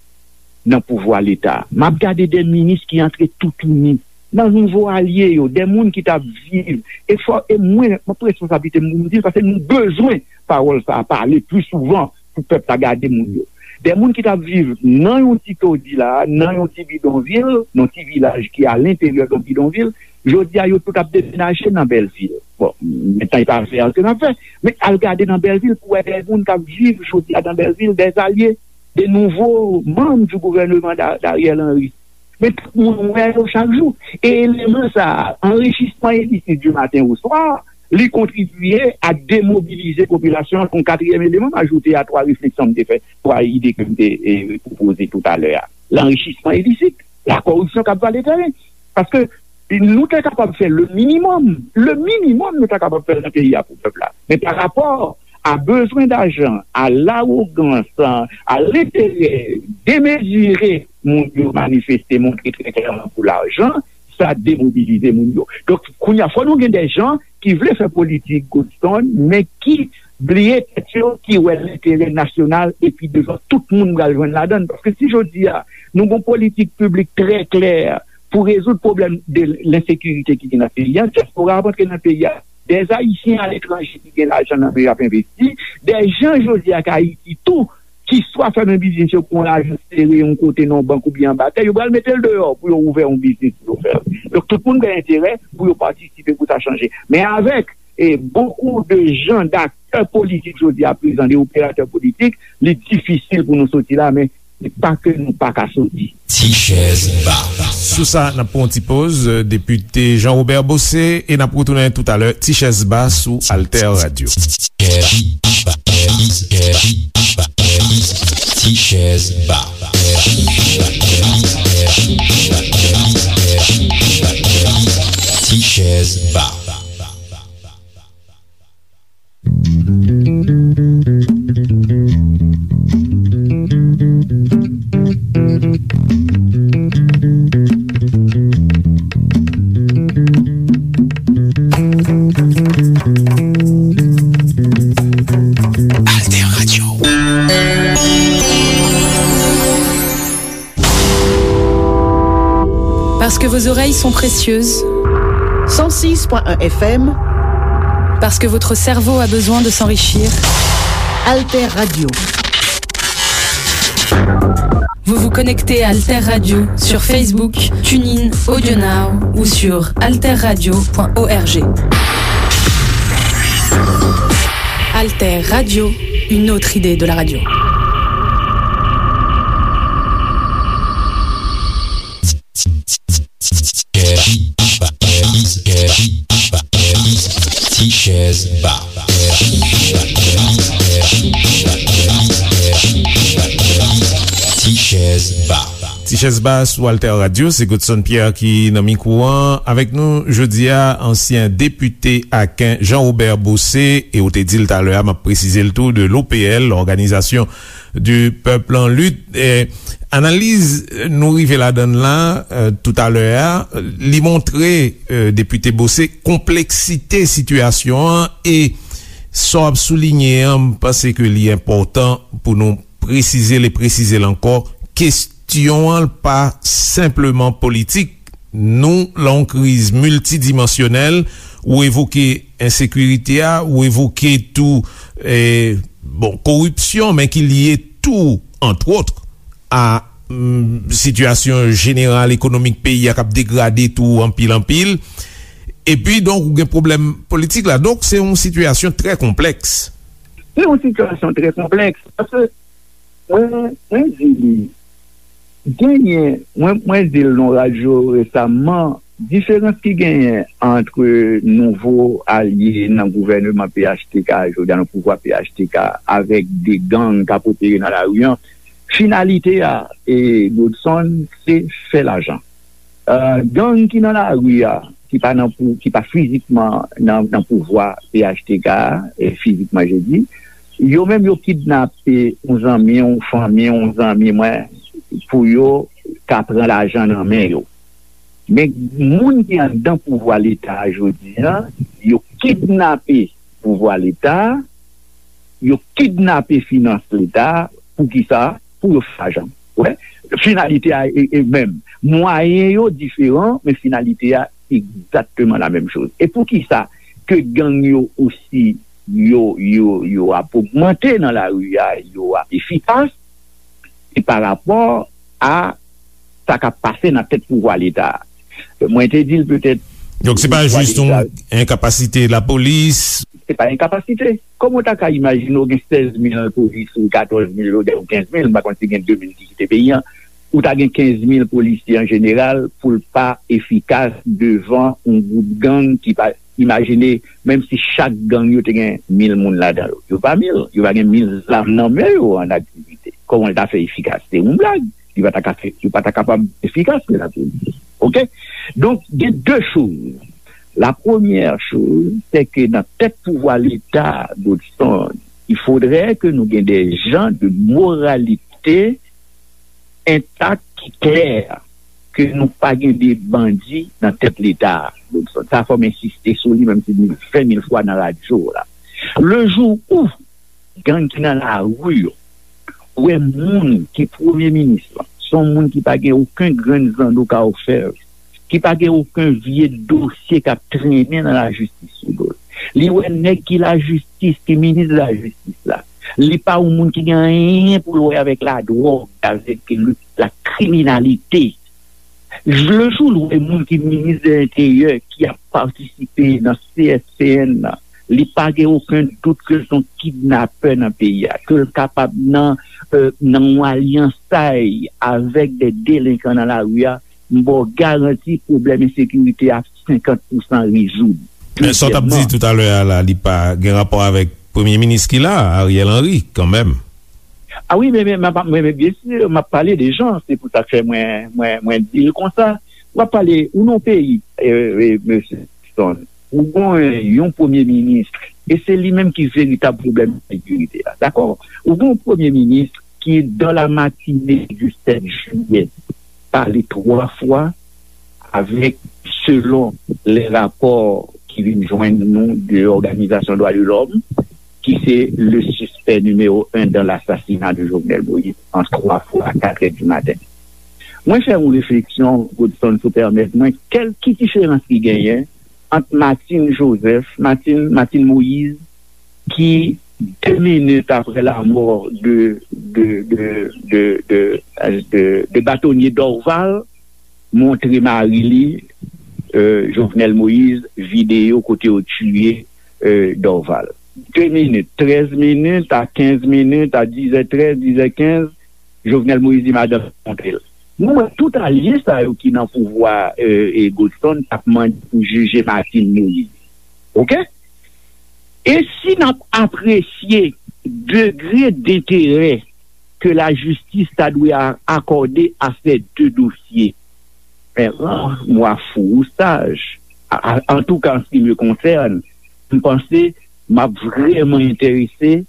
nan pouvwa Leta. M ap gade de minis ki antre toutouni nan nouvo alye yo, de moun ki t ap viv. E fò, e mwen, m ap pran responsablite m pou m di l, paske nou bezwen pawòl sa a pale pli souvan pou pèp la gade moun yo. De moun ki t ap viv nan yon ti todi la, nan yon ti bidonvil, nan yon ti vilaj ki alenteryè de yon bidonvil, jodi a yo tout ap demenaje nan Bèlvil. Bon, mentnan e pa afè a ke n ap fè, men al gade nan Bèlvil pou wè de moun k ap viv jodi a nan Bèlvil, de alye, de nouvo manm du gouvèneman Da-, Dariel Henry. Men tout moun wè yo chak jou. E eleman sa a, anrichisman ilisit du matin au soir, li kontribye a demobilize popilasyon an. Yon katriyèm eleman, m ajoute a twa refleksyon m te fè, twa ide ke m te, e, pwopoze toutalè a. Lanrichisman ilisit, la koripsyon k ap vale tèren. Paske nou te kapab fè le minimòm, le minimòm nou ta kapab fè nan peyi a pou pèp la. Men pa rapò a bezwen dajan, a lawogans, a lenterè demezire moun yo manifeste, montre trè klèman pou lajan, sa demobilize moun yo. Donk, kounye a, fò nou gen de jan ki vle fè politik, Godson, men ki bliye tèt yo, ki wè lenterè nasyonal, epi devan tout moun pral jwenn ladan l. Paske si jodi a, nou gon politik piblik trè klè pou rezoud pwoblèm de lensekirite ki gen nan peyi a, dyaspora ap antre nan peyi a. Dèzayisyen aletranje ki gen lajan nan men yo ap envesti. Dèzan jodi a k Ayiti tou, ki swa fèmen biznis yo pou yon lajan sere yon kote nan yon bank oubyen anba tè, yo pral mete l deyò pou yo ouvè yon biznis pou yo fè l. Donk, tout moun gen enterè pou yo patisipe pou sa chanje. Men avèk, e, bokou de jan, daktè politik jodi a prezan, de operatè politik, li difisil pou nou soti la, men se pa ke nou pa ka soti. Ti chèz ba. Sou sa, n ap pran yon ti poz, euh, depite Jean Robert Bossé, e n ap retounen toutalè, Ti chèz ba sou Alter Radio. Ti chèz ba. Ti chèz ba. Alter Radio. Parce que vos oreilles sont précieuses. Cent six point un F M. Parce que votre cerveau a besoin de s'enrichir. Alter Radio. Vous vous connectez à Alter Radio sur Facebook, TuneIn, AudioNow ou sur alterradio point org. Alter Radio, une autre idée de la radio. Ti chèz ba. Ti chèz ba. Ti chèz ba sou Alter Radio, se Godson Pierre ki nan mikwo an. Avèk nou jodi a, ansyen depite Aken Jean Robert Bossé, e ou te di l talè a, m ap presize l tou, de l'O P L, Organisation du Peuple en Lutte. E, analiz nou rive ladan l la, e, toutalè a, li montre, e, depite Bossé, konpleksite sitiyasyon an, e sa w ap soulinye an, m panse ke li enpòtan pou nou presize l e presize l ankò. Kesyon an pa senpleman politik. Nou lan yon kriz miltidimansyonèl. Ou evoke ensekirite a, ou evoke tou, e, bon, koripsyon, men ki lye tou, antwòt, a, mm, sitiyasyon jeneral ekonomik peyi a k ap degrade tou anpil, anpil. Epi, donk, ou gen pwoblèm politik la. Donk, se yon sitiyasyon trè konplèks. Se yon sitiyasyon trè konplèks, paske mwen, mwen di li, genyen, mwen, mwen di l nan radyo resaman, diferans ki genyen ant nouvo alye nan gouvèneman P H T K, jodi a nan pouvwa P H T K, avèk de gang k ap opere nan lari an, finalite a, e, Godson, se fè lajan. E, gang ki nan lari a, ki pa nan pou, ki pa fizikman nan, nan pouvwa P H T K a, e fizikman, je di, yo menm yo kidnape yon zanmi, yon fanmi, yon zanmi mwen, pou yo ka pran lajan nan men yo. Men moun ki anndan pouvwa Leta a jodi a, yo kidnape pouvwa Leta a, yo kidnape finans Leta a, poukisa? Pou yo fè lajan. Wè, finalite a e, e menm. Mwayen yo diferan, men finalite a egzakteman la menm choz. E poukisa ke gang yo osi, yo, yo, yo ap ogmante nan lari a, yo ap efikas? Se pa rapò a sa k ap pase nan tèt pouvwa Leta a. Mwen te di l petèt. Donk, se pa jis yon enkapasite lapolis. Se pa enkapasite. Kòman w ta ka imajine w gen sèz mil polisye, katòz mil, ou kenz mil, m pa konn si gen de mil ki kite peyi a, ou ta gen kenz mil polisye an jeneral pou l pa efikas devan yon gwoup gang ki pa, imajine, menm si chak gang yo te gen mil moun ladan yo. Yo pa mil, yo pa gen mil zam nan men yo an aktivite. Kòman l ta fè efikas? Se yon blag. Li pa ta ka fè, li pa ta kapab efikas, men lapolis. Oke? Donk, gen de choz. La première chose, c'est que nan tèt pouvwa Leta, Godson, il faudrait que nou gen des gens de moralité intact ki klè, ke nou pa gen de bandi nan tèt Leta, Godson. Sa fò m ensiste sou li, menm si m di l ven mil fwa nan radyo la. Le jour où gang ki nan lari yo wè moun ki premye minis lan, se yon moun ki pa gen okenn grenn zanno ka ofè l, ki pa gen okenn vye dosye k ap trennen nan lajistis sou do l. Li wè nèg ki lajistis, ki minis lajistis la, li pa yon moun ki gen anyen pou l wè avèk ladwòg, avèk le, la kriminalite. Le jou l wè moun ki minis de lenteryè ki ap patisipe nan C S C N nan, li pa gen okenn dout ke l se yon kidnapè nan peyi a, ke l kapab nan, euh, nan yon alyansay avèk de delenkan nan lari a, m ba w garanti pwoblèm ensekirite a senkant pousan rezoud. Men sa w t ap di toutalè a la, li pa gen rapò avèk premye minis ki la, Ariel Henry, kanmenm. A wi, men, men, men, men, men byen si, m ap pale de jan, se pou sa k fè mwen, mwen, mwen di l konsa. W ap pale, ou nan yon peyi, e, e, mesye Stone, ou gen yon premye minis, e se li menm ki veritab pwoblèm sekirite a, dakò? Ou gen yon premye minis ki, dans la matinée du sept juillet, pale twa fwa avèk, selon les rapports ki vin jwenn nou de Òganizasyon Dwa de Lòm, ki se le suspect numéro un dans l'assassinat de Jovenel Moïse, an twa fwa a katrè di maten. Mwen fè yon refleksyon, Godson, si w pèmèt mwen, kèl ki diferans ki genyen ant Martine Joseph, Martine, Martine Moïse, ki, de minit apre lanmò de, de, de, de, de, de, de batonye Dorval, montre mari li, euh, Jovenel Moïse, videyo kote yo tiye, euh, Dorval. De minit, trèz minit, a kenz minit, a dizè trèz, dizè kenz, Jovenel Moïse di madanm montre l. Nou wè tout alye sa yo ki nan pouvwa, euh, e Godson t ap mande pou jije Martine Moïse. Oke? E si n ap apresye degre denterè ke lajistis ta dwe a- akòde a ces deux dossiers, en rare, moi, fou ou sage, a- a- en tout cas, en ce qui me concerne, m panse m ap vrèman enterese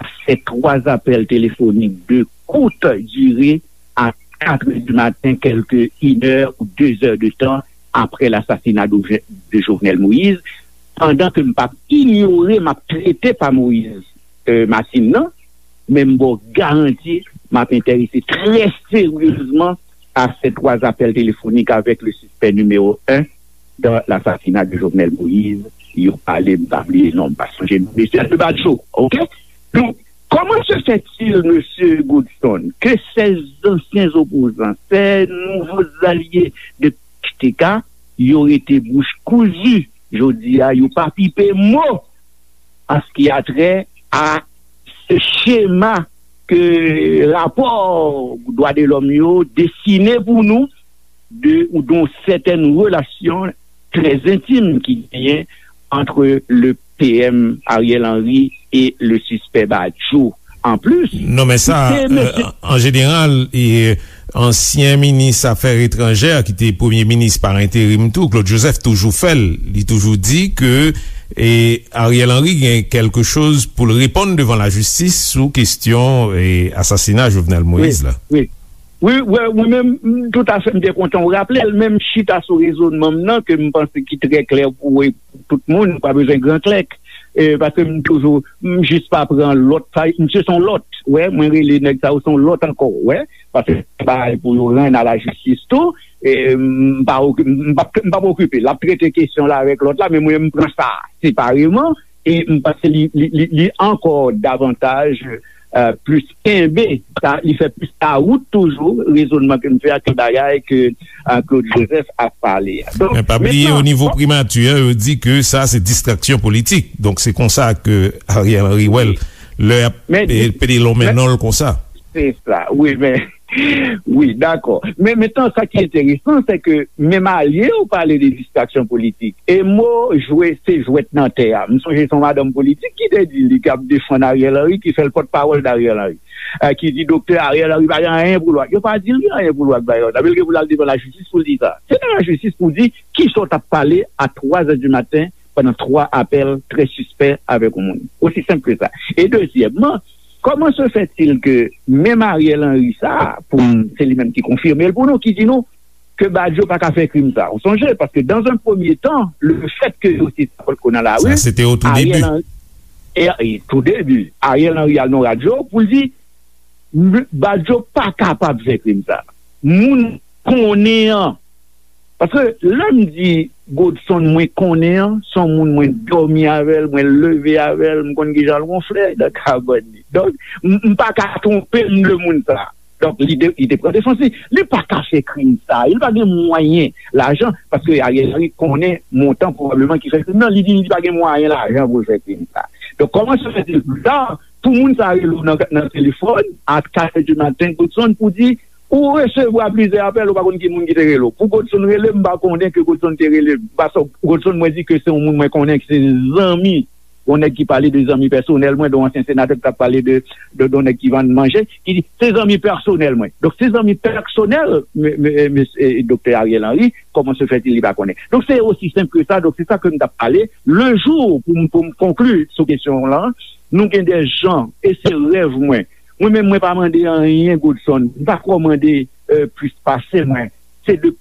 a ces trois appels téléphoniques de courte durée à quatre heures du matin, quelques une heure ou deux heures de temps après l'assassinat de, de Jovenel Moïse, pandan ke m p ap inyore, m ap trete pa Moïse, euh, Martine nan, men m ba w garanti, m ap enterese trè seryezman a ces trois appels téléphoniques avec le suspect numéro un dans l'assassinat de Jovenel Moïse. Yo pale, m pa bliye non, m pa sonje non, mesye Alpha Badjo, oke? Donk, comment se fait-il, monsieur Godson, que ces anciens opposants, ces nouveaux alliés de P H T K, yo rete bouch kouzi jodi a, yo pa pipe mo an ce qui a trait à ce schéma ke rapò dwa de lòm yo desine pou nou de, ou d'une certaine relation très intime ki genyen entre le P M Ariel Henry et le suspect Badjo. En plus, Non, men sa, se mesye euh, an jeneral, e, ansyen minis afè etranjè ki te premye minis pa enterim tou, Claude Joseph, toujou fè l. Li toujou di ke e, Ariel Henry gen kèlke choz pou l reponn devan lajistis sou kesyon e, asasina Jovenel Moïse la. Wi, wi, wi, mwen menm, m, toutafè, m te kontan w raple l, men m chita sou rezònman m nan, ke m panse ki trè klè pou e, tout moun, pa bezwen gran klèk. E, paske m toujou, m jis pa pran lòt, sa, misye se yon lòt. Wè, mwen rele nèg sa yo se yon lòt ankò, wè. Paske se bagay pou yo rann a lajistis tou. E, m pa oki- m p ap m p ap okipe l. L ap trete kesyon la avèk lòt la, men mwen m pran sa separeman. E m panse li, li, li, li ankò davantaj, euh, plis kenbe, sa, li fè plis lawout toujou, rezònman ke m fè a ke bagay ke, euh, Claude Joseph ap pale a. Donk, Men pa bliye, mentnan, o nivo primati a, yo di ke sa se distraksyon politik. Donk se konsa ke Ariel Henry wè l, lè y ap Men- e, pede lonmen men- non l konsa. Se sa, wi, men, wi, dakò. Men mentnan, sa ki enteresan, se ke menm alye yo pale de distraksyon politik. E mo jwe, se jwèt nan tè a. M sonje se yon madanm politik ki te di li k ap defann Ariel Henry, ki fè l pòtpawòl d Ariel Henry. Eh, ki di doktè Ariel Henry pa gen anyen pou l wè. Yo pa di l gen anyen pou l wè ak bagay sa. Men l gen pou l al devan lajistis pou l di sa. Se nan lajistis pou di kisa w t ap pale a twa zè di maten pandan twa apèl trè sispè avèk yon moun. Osi senp ke sa. E dezyèmman, comment se fait-il que menm Ariel Henry sa, pou m, se li menm ki konfime l pou nou, ki di nou ke Badio pa ka fè krim sa. Ou sonje, paske dans un premier temps, le fait que yo te sa potko nan lari, Sa se te o tou Ariel debi. Henry, e, e, tou debi, Ariel Henry al nan radyo pou l di, "M- Badio pa kapab fè krim sa." Moun konnen an. Paske lè m di Godson mwen konnen an, se yon moun mwen dòmi avè l, mwen leve avè l, m konn kijan l wonfle nan kabann li. Donk, m m pa ka twonpe m de moun sa. Donk, li, de, li te pran defans li. Li pa ka fè krim sa. Li pa gen mwayen lajan. Paske Ariel Henry konnen montan pwobableman ki fè krim nan. Li di li pa gen mwayen lajan pou l fè krim sa. Donk, comment se fait-il plus tard pou moun sa rele w nan, nan telefòn a kat è di maten, Godson, pou di ou resevwa plizyè apèl, ou pa konn ki moun ki te rele w. Pou Godson rele m, m pa konnen ke Godson te rele m. Paske Godson, mwen di ke se yon moun mwen konnen, ke se zanmi Yon nèg ki pale de zanmi pèsonèl mwen, de yon ansyen senatè ki t ap pale de, de, de yon nèg ki vann manje, ki di, se zanmi pèsonèl mwen. Donk, se zanmi pèsonèl, me, me, me, e, doktè Ariel Henry, comment se fait-il li pa konnen. Donk, se osi senp ke sa. Donk, se sa ke m t ap pale. Le jour, pou m, pou m konkli sou kesyon w lan, nou gen de jan, e se rèv mwen. Mwen menm, mwen pa mande anyen, Godson. M pa kwè w mande, euh, plis pase mwen. Se de,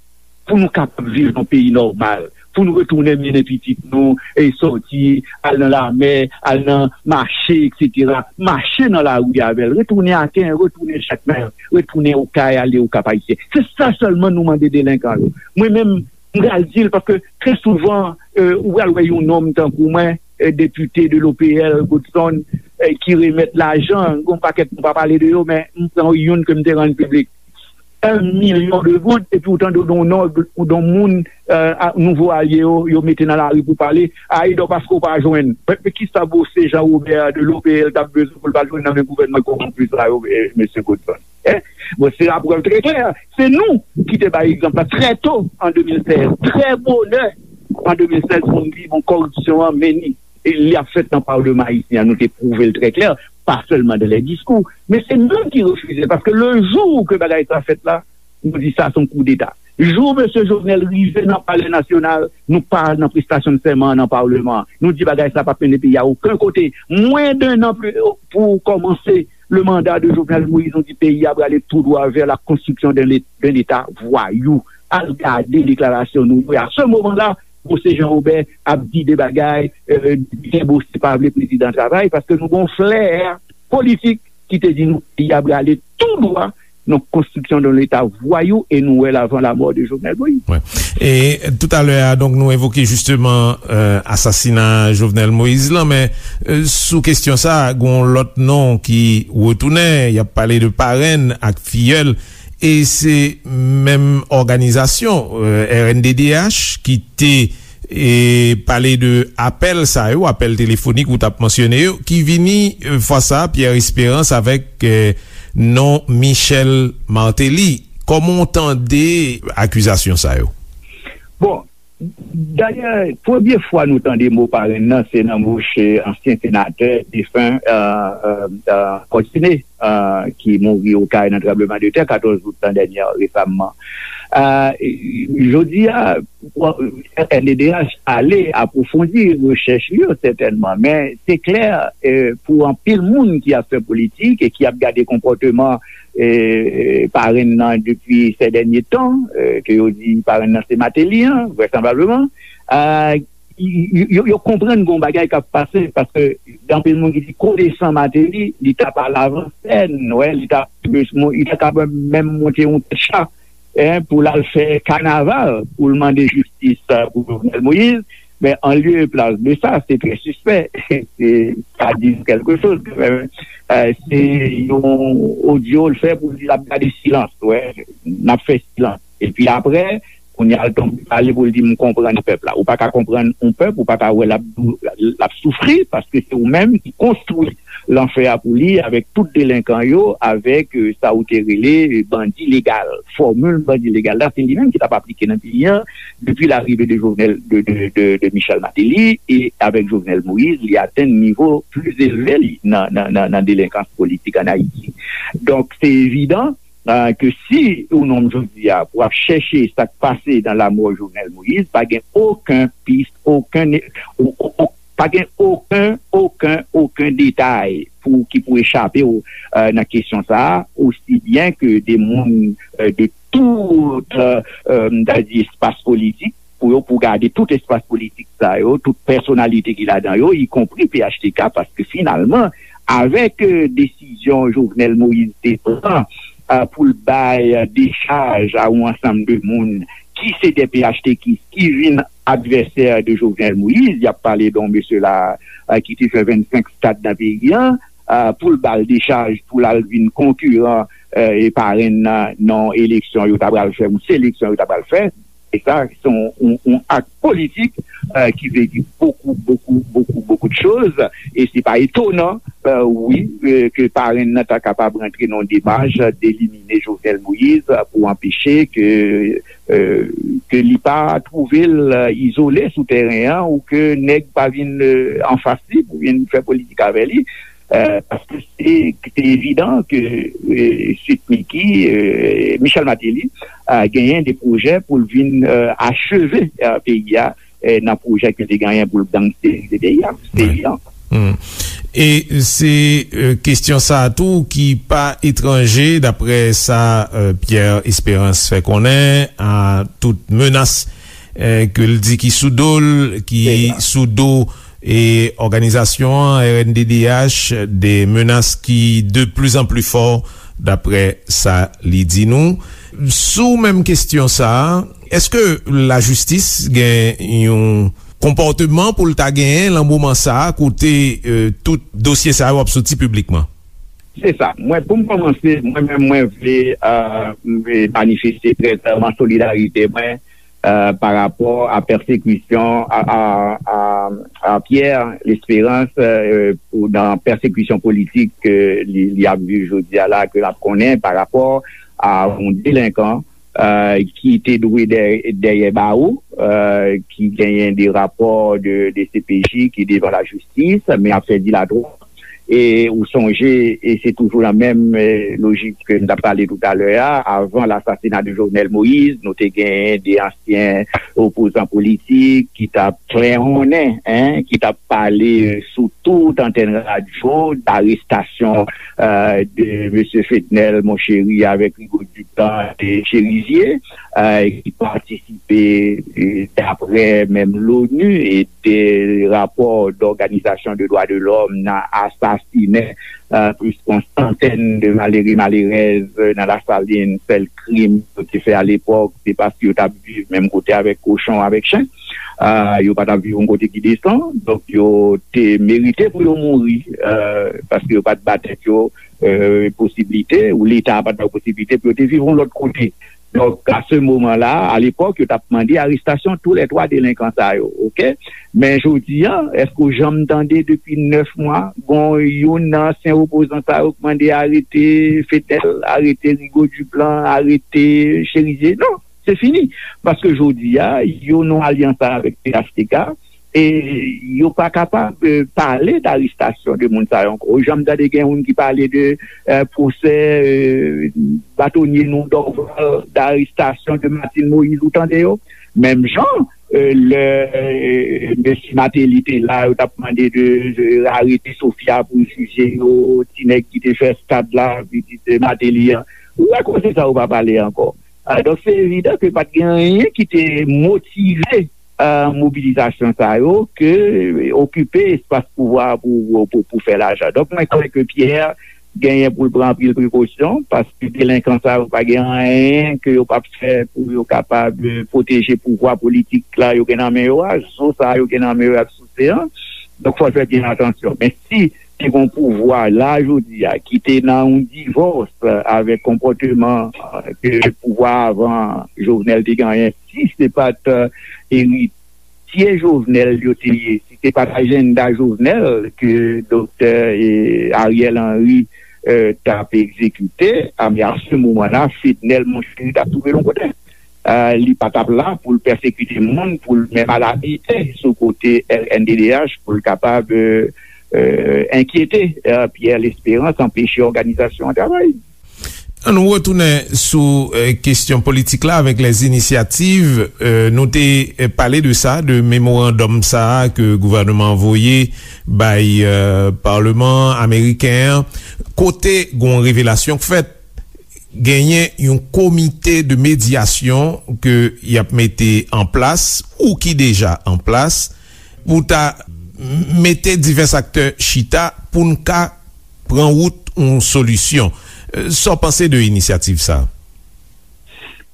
pou nou kapab viv nan peyi nòmal, pou nou retounen mennen pitit nou, e sòti, al nan lamè, al nan mache, etsetera. Mache nan lari avè l, retounen Aken, retounen Jakmèl, retounen Okay, ale Okap Ayisyen. Se sa sèlman nou mande delenkan yo. Mwen menm, m pral di l, paske trè souvan, euh, ou pral wè yon nonm tankou mwen, euh, depite de l'O P L, Godson, euh, ki remèt lajan, gon pakèt nou pa pale de yo, men m pran youn ke m te rann piblik. Un million de goud, epi ou tande w don nòg, ou don moun, euh, a, nouvo alye yo, yo mete nan lari pou pale, a, e donk paske w pa jwenn. Men, men kisa Bose Jean Robert de l'O P L t ap bezwen pou l pa jwenn nan men gouvènman kowonpi sa yo, eh, mesye Godson? Eh, bon, se laprèv trè klè. Se nou ki te bay egzanp la trè to an de mil sèz. Trè bonè an de mil sèz, pou n di, bon, kòripsyon an, men ni, e li ap fèt nan Palman ayisyen an, nou te pwouve l trè klè, pa sèlman dans les discours, men se nou ki refize l, paske le jou ke bagay sa fèt la, nou di sa se yon koudeta. Jou mesye Jovenel rive nan Palè Nasyonal, nou pa nan prestasyon de sèman an nan Palman an. Nou di bagay sa p ap mennen peyi a okenn kote. Mwens de nan pou kòmanse le mandat de Jovenel Moïse, nou di peyi a prale tou dwa vers la construction d'un lé-, d'un État voyou. Al gade deklarasyon nou yo. A se moman la, Bose Jean Robert ap di de bagay, euh, byen Bose pa vle prezidan travay, paske nou gon flè politik ki te di nou peyi a prale tou dwa nan construction d'un État voyou, e nou wè l avant la mort de Jovenel Moïse. Wè. E toutalè a, donk, nou evoke jisteman, euh, asasina Jovenel Moïse lan, men, euh, sou kesyon sa, gon lòt non ki retounen, y ap pale de parenn ak fiyèl, e se menm òganizasyon, euh, R N D D H ki te e pale de apèl sa yo, apèl telefonik ou t ap mansyone yo, ki vini, e, fwa sa a, Pierre Espérance avèk, e, non Michel Martelly. Kòman w tande akizasyon sa yo? Bon, dayè, premye fwa nou tande mo parenn nan, se nan bouch, e, ansyen senatè defen, e, e, e, Fortuné, e, ki mouri Okay nan tranbleman de tè katòz out lan dènye, resamman. E, jodi a, R N D D H ale apwofondi rechèch li yo, sètènman, men se klè, e, pou anpil moun ki ap fè politik e ki ap gade konpòteman, e, parenn nan depi sè dènye tan, e, ke yo di parenn nan se Martelly an, vrèsanblableman, e, y-, y-, yo, yo konprann gon bagay k ap pase, paske gen anpil moun ki di konesan Martelly, li t ap al avan sèn, wè, li t ap, li ta kapab menm monte yon tèt cha, en, pou l al fè kanaval, pou l mande jistis, e, pou Jovenel Moïse. Men, an lye e plas de sa, se trè sispè. Se, sa di nou kèlke choz, kanmenm. E, se yon odyo l fè pou l di l ap gade silans, wè, n ap fè silans. Epi apre, kounye a l tonbe pale pou l di, "M konprann pèp la." Ou pa ka konprann yon pèp, ou pa ka wè l ap dou-, l ap soufri, paske se ou menm ki konstwi lanfè a pou li avèk tout delenkan yo, avèk, e, sa ou te rele, e, bandi legal. Fòmil bandi legal la, se li menm ki t ap aplike nan peyi a depi larive de Jovenel, de, de, de, de Michel Martelly, e avèk Jovenel Moïse, li atenn nivo pli elve li nan, nan, nan, nan delenkans politik ann Ayiti. Donk, se evidan, e, ke si ou nonm jodi a pou ap chèche sa k pase nan lamò Jovenel Moïse, pa gen okenn pis, okenn, o-, o-, o-, pa gen okenn, okenn, okenn detay pou, ki pou echape w, e, nan kesyon sa a, osi byen ke de moun, e, de tout, e, e, m ta di espas politik, pou yo, pou gade tout espas politik sa yo, tout pèsonalite ki ladan yo, ikonpri P H T K, paske finalman, avèk, e, desizyon Jovenel Moïse te pran, e, pou l bay, e, dechaj a yon ansanm de moun ki se de P H T K ki vin advèsè de Jovenel Moïse, y ap pale de yon mesye la, e, ki te fè vennsenk stad nan peyi a, e, pou l ba l dechaj, pou l al vin konkiran, e, e parenn nan, nan eleksyon yo ta pral fè, yon seleksyon yo ta pral fè. E sa, se yon, yon, yon ak politik, e, ki vle di bokou, bokou, bokou, bokou de choz. E se pa etonan, e, wi, e, ke parenn nan ta kapab rantre nan yon demach delimine Jovenel Moïse pou anpeche ke, e, ke li pa twouve l, e, izole sou teren an, ou ke nèg pa vin, e, anfas li pou vin fè politik avè li. E, paske se, se evidan ke, e, Sweet Micky, e, Michel Martelly, e, genyen de pwojè pou l vin, e, acheve, e, peyi a, e, nan pwojè ke te genyen pou l gangstèrize peyi a. Se evidan. E se, e, kesyon sa a tou ki pa etranje, daprè sa, e, Pierre Espérance fè konnen, a tout menas, e, ke l di ki sou do l, ki sou do, e, òganizasyon an, R N D D H, de menas ki de plus en plus fò, daprè sa li di nou. Sou menm kesyon sa a, èske lajistis gen yon konpòteman pou l ta genyen lan moman sa a kote, e, tout dosye sa yo ap soti piblikman? Se sa. Mwen, pou m kòmanse, mwen menm, mwen vle, e, m vle manifeste trè klèman solidarite mwen, e, pa rapò a pèsekisyon a, a, a, a Pierre Espérance, e, pou, nan pèsekisyon politik ke li, li ap viv jodi a la, ke l ap konnen pa rapò a yon delenkan, e, ki te dwe dè, dèyè bawo, e, ki genyen de rapò de, de C P J ki devan lajistis, men ap fè dilatwa. E ou sonje, e se toujou nan menm, e, lojik ke n t ap pale toutalè a, avan lasasina de Jovenel Moïse, nou te genyen de ansyen opozan politik ki t ap klèhonnen, en, ki t ap pale, e, sou tout antèn radyo, darestasyon, e, de mesye Fednel Monchéry avèk Rigaud Duplan de Chérizier, e, ki patisipe, e, daprè menm l'ONU e de rapò d'òganizasyon de dwa de lòm nan asasinen, e, plis yon santèn de malere, malerèz, e, nan Lasalin. Sèl krim yo te fè alepòk, se paske yo t ap viv menm kote avèk kochon, avèk chen. E, yo pa t ap viv yon kote ki desan, donk yo te merite pou yo mouri, e, paske yo pa t ba tèt yo, e, posiblite, ou Leta pa t ba yo posiblite pou yo te viv yon lòt kote. Donk, a se moman la, alepòk, yo t ap mande arestasyon tou lè twa delenkan sa yo, oke? Men jodi a, èske w janm tande depi nèf mwa, gon youn nan ansyen opozan sa yo k mande arete Fednel, arete Rigaud Duplan, arete Chérizier? Non, se fini. Paske jodi a, yo nan alyans avèk P H T K, e yo pa kapab, e, pale darestasyon de moun sa yo ankò. Ou janm tande gen youn ki pale de, e, pwosè, e, batonye nou Dorval, darestasyon de Martine Moïse, ou tande yo? Menm jan, e, lè, e, mesye Martelly te la, yo t ap mande de, de arete Sophia pou jije yo, ti nèg ki te fè stad la, pitit, e, Martelly an. Ou wè koze sa yo pa pale ankò. A, donk, se evidan ke pa t gen anyen ki te motive, e, mobilizasyon sa yo ke okipe espas pouvwa pou, pou, pou fè lajan. Donk, mwen kwè ke Pierre genyen pou l pran anpil prekosyon, paske delenkan sa yo pa gen anyen ke yo p ap fè pou yo kapab, e, pwoteje pouvwa politik la yo gen nan men yo a, zo sa yo gen nan men yo y ap souse an. Donk, fò l fè byen atansyon. Men si te gon pouvwa la jodi a ki te nan yon divòs, e, avèk konpòteman, e, ke pouvwa avan Jovenel te genyen, si se pa t, e, eritye Jovenel yo te ye, si se pa t ajanda Jovenel ke doktè, e, Ariel Henry, e, t ap egzekite, a, men a se moman la, Fednel Monchéry t ap twouve l yon kote. E, li pa t ap la pou l pèsekite moun, pou l menm al abite sou kote R N D D H, pou l kapab, e, e, enkyete, e, Pierre L'Espérance, anpeche òganizasyon an travay. Ann nou retounen sou, e, kesyon politik la avèk les initiatives. E, nou te, e, pale de sa, de memorandòm sa a ke gouvènman an voye bay, e, Palman ameriken an, kote gon revelasyon k fèt, genyen yon komite de medyasyon ke y ap mete an plas ou ki deja an plas pou ta mete divès aktè chita pou n ka pran wout yon solisyon. E, sa w panse de inisyativ sa a?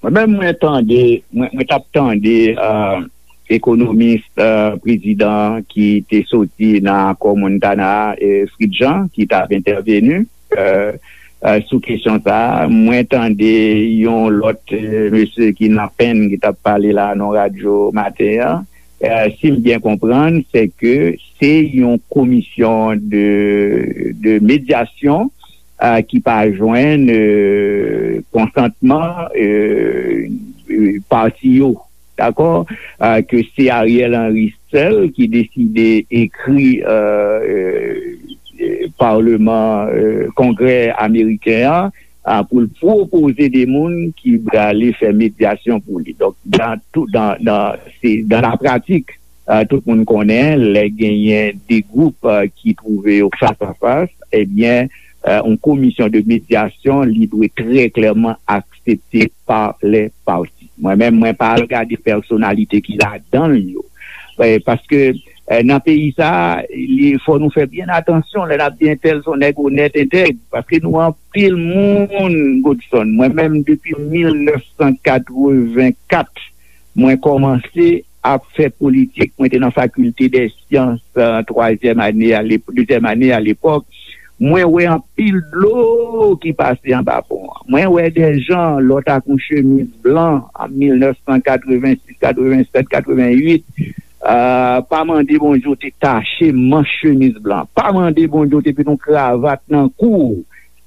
Mwen menm, mwen tande, mwen, mwen t ap tande, e, ekonomis, e, prezidan ki te soti nan akò Montana a, e, Fritz Jean, ki t ap entèveni, e, e, sou kesyon sa a. Mwen tande yon lòt, e, mesye ki nan penn ki t ap pale la nan radyo maten an. E, si m byen konprann, se ke se yon komisyon de, de medyasyon, e, ki pa jwenn, e, konsantman, e, e, pati yo. dakò, ke se Ariel Henry sèl ki deside ekri Palman, Kongrè ameriken an, pou l pwopoze de moun ki prale fè medyasyon pou li. Donk, dan tout, dan, dan, se, dan la pratik, tout moun konnen, lè genyen de gwoup ki twouve yo fas a fas, ebyen, yon komisyon de medyasyon, li dwe trè klèman aksepte pa lè pati. Mwen menm, mwen pa al gade pèsonalite ki ladan l yo. Paske nan peyi sa, li fò nou fè byen atansyon lè n ap di entèl se yon nèg onèt, entèg, paske nou anpil moun, Godson. Mwen menm, depi mil nèf san katrevenkat, mwen kòmanse ap fè politik. Mwen te nan fakilte dè syans, twazyèm ane, dezyèm ane alepòk. Mwen wè anpil dlo ki pase anba pon an. Mwen wè dè jan lòt ak yon chemiz blan an mil nèf san katrevensis, katrevenset, katrevenwit. Pa mande Bondye w te tache manch chemiz blan. Pa mande Bondye w te met yon kravat nan kou w.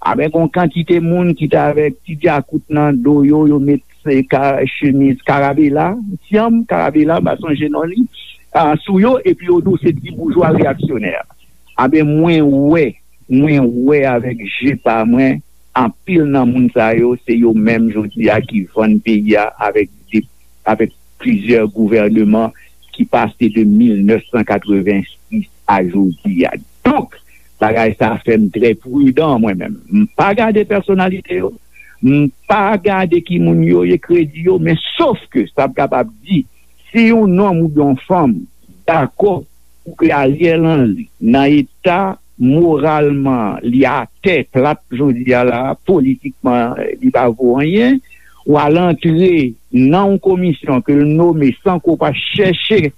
Avèk yon kantite moun ki t avèk ti dyakout nan do yo, yo met chemiz karabela, syanm karabela, m pa sonje non li, sou yo, epi yo di w se ti boujwa reyaksyonè. Anben, mwen wè, mwen wè avèk je pa mwen, anpil nan moun sa yo, se yo menm jodi a ki vann peyi a avèk de, avèk plizyè gouvèneman ki pase de mil nèf san katrevensis a jodi a. Donk, bagay sa fè m trè pridan, mwen menm. M pa gade pèsonalite yo, m pa gade ki moun yo ye, kredi yo, men sof ke sa m kapab di, si yon nonm oubyen yon fanm dakò pou ke Ariel Henry, nan eta moralman li atè plat jodi a la, politikman li pa vo anyen, w al antre nan yon komisyon ke l nome san ke w pa chèche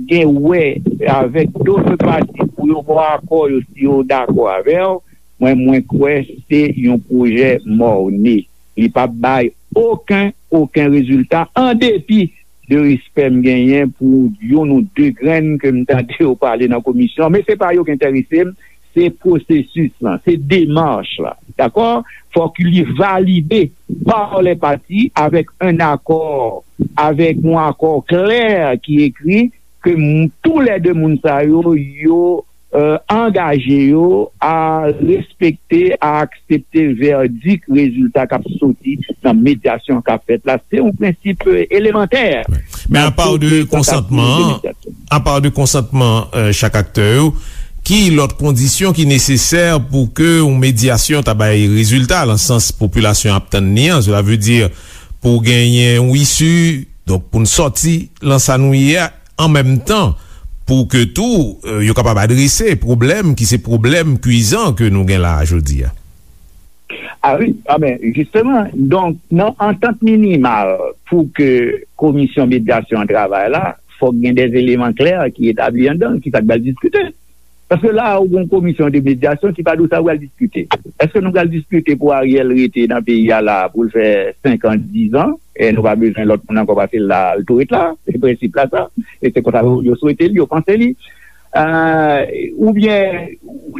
gen wè avèk dot pati pou yo ba w akò yo si yo dakò avè w, mwen, mwen kwè se yon pwojè mòne. Li p ap bay okenn, okenn rezilta, an depi de respè m genyen pou youn ou de grenn ke m tande yo pale nan komisyon an. Men se pa yo ki enterese m, se pwosesis lan, se demach la. Dakò? Fòk li valide pa lè pati avèk yon akò, avèk yon akò klè ki ekri ke m, toulède moun sa yo, yo angaje yo a respekte, a aksepte vèdik rezilta k ap soti nan medyasyon k ap fèt la. Se yon prensip elemantè. Men apa de konsantman, apa de konsantman chak aktè yo, ki lòt kondisyon ki nesesè pou ke yon medyasyon ta bay rezilta nan sans popilasyon ap tann li an? Cela veut dire pou genyen yon isi, donk pou n sòti nan sa nou ye a, an menm tan, pou ke tou yo kapab adrese pwoblèm ki se pwoblèm kwizan ke nou gen la a jodi a. A wi, a men, jisteman, donk, nan antant minimal pou ke komisyon medyasyon an travay la, fòk gen de eleman klè ki etabli anndan l, ki sa k pral diskite. Paske la a, ou gen yon komisyon de medyasyon ki pa di w sa w pral diskite. Èske nou pral diskite pou Ariel rete nan peyi a la a pou l fè senk an, diz an, e nou pa bezwen lòt moun ankò pase l la, l tou ret la? Se prensip la sa. E se konsa yo, yo swete li, yo panse li. Oubyen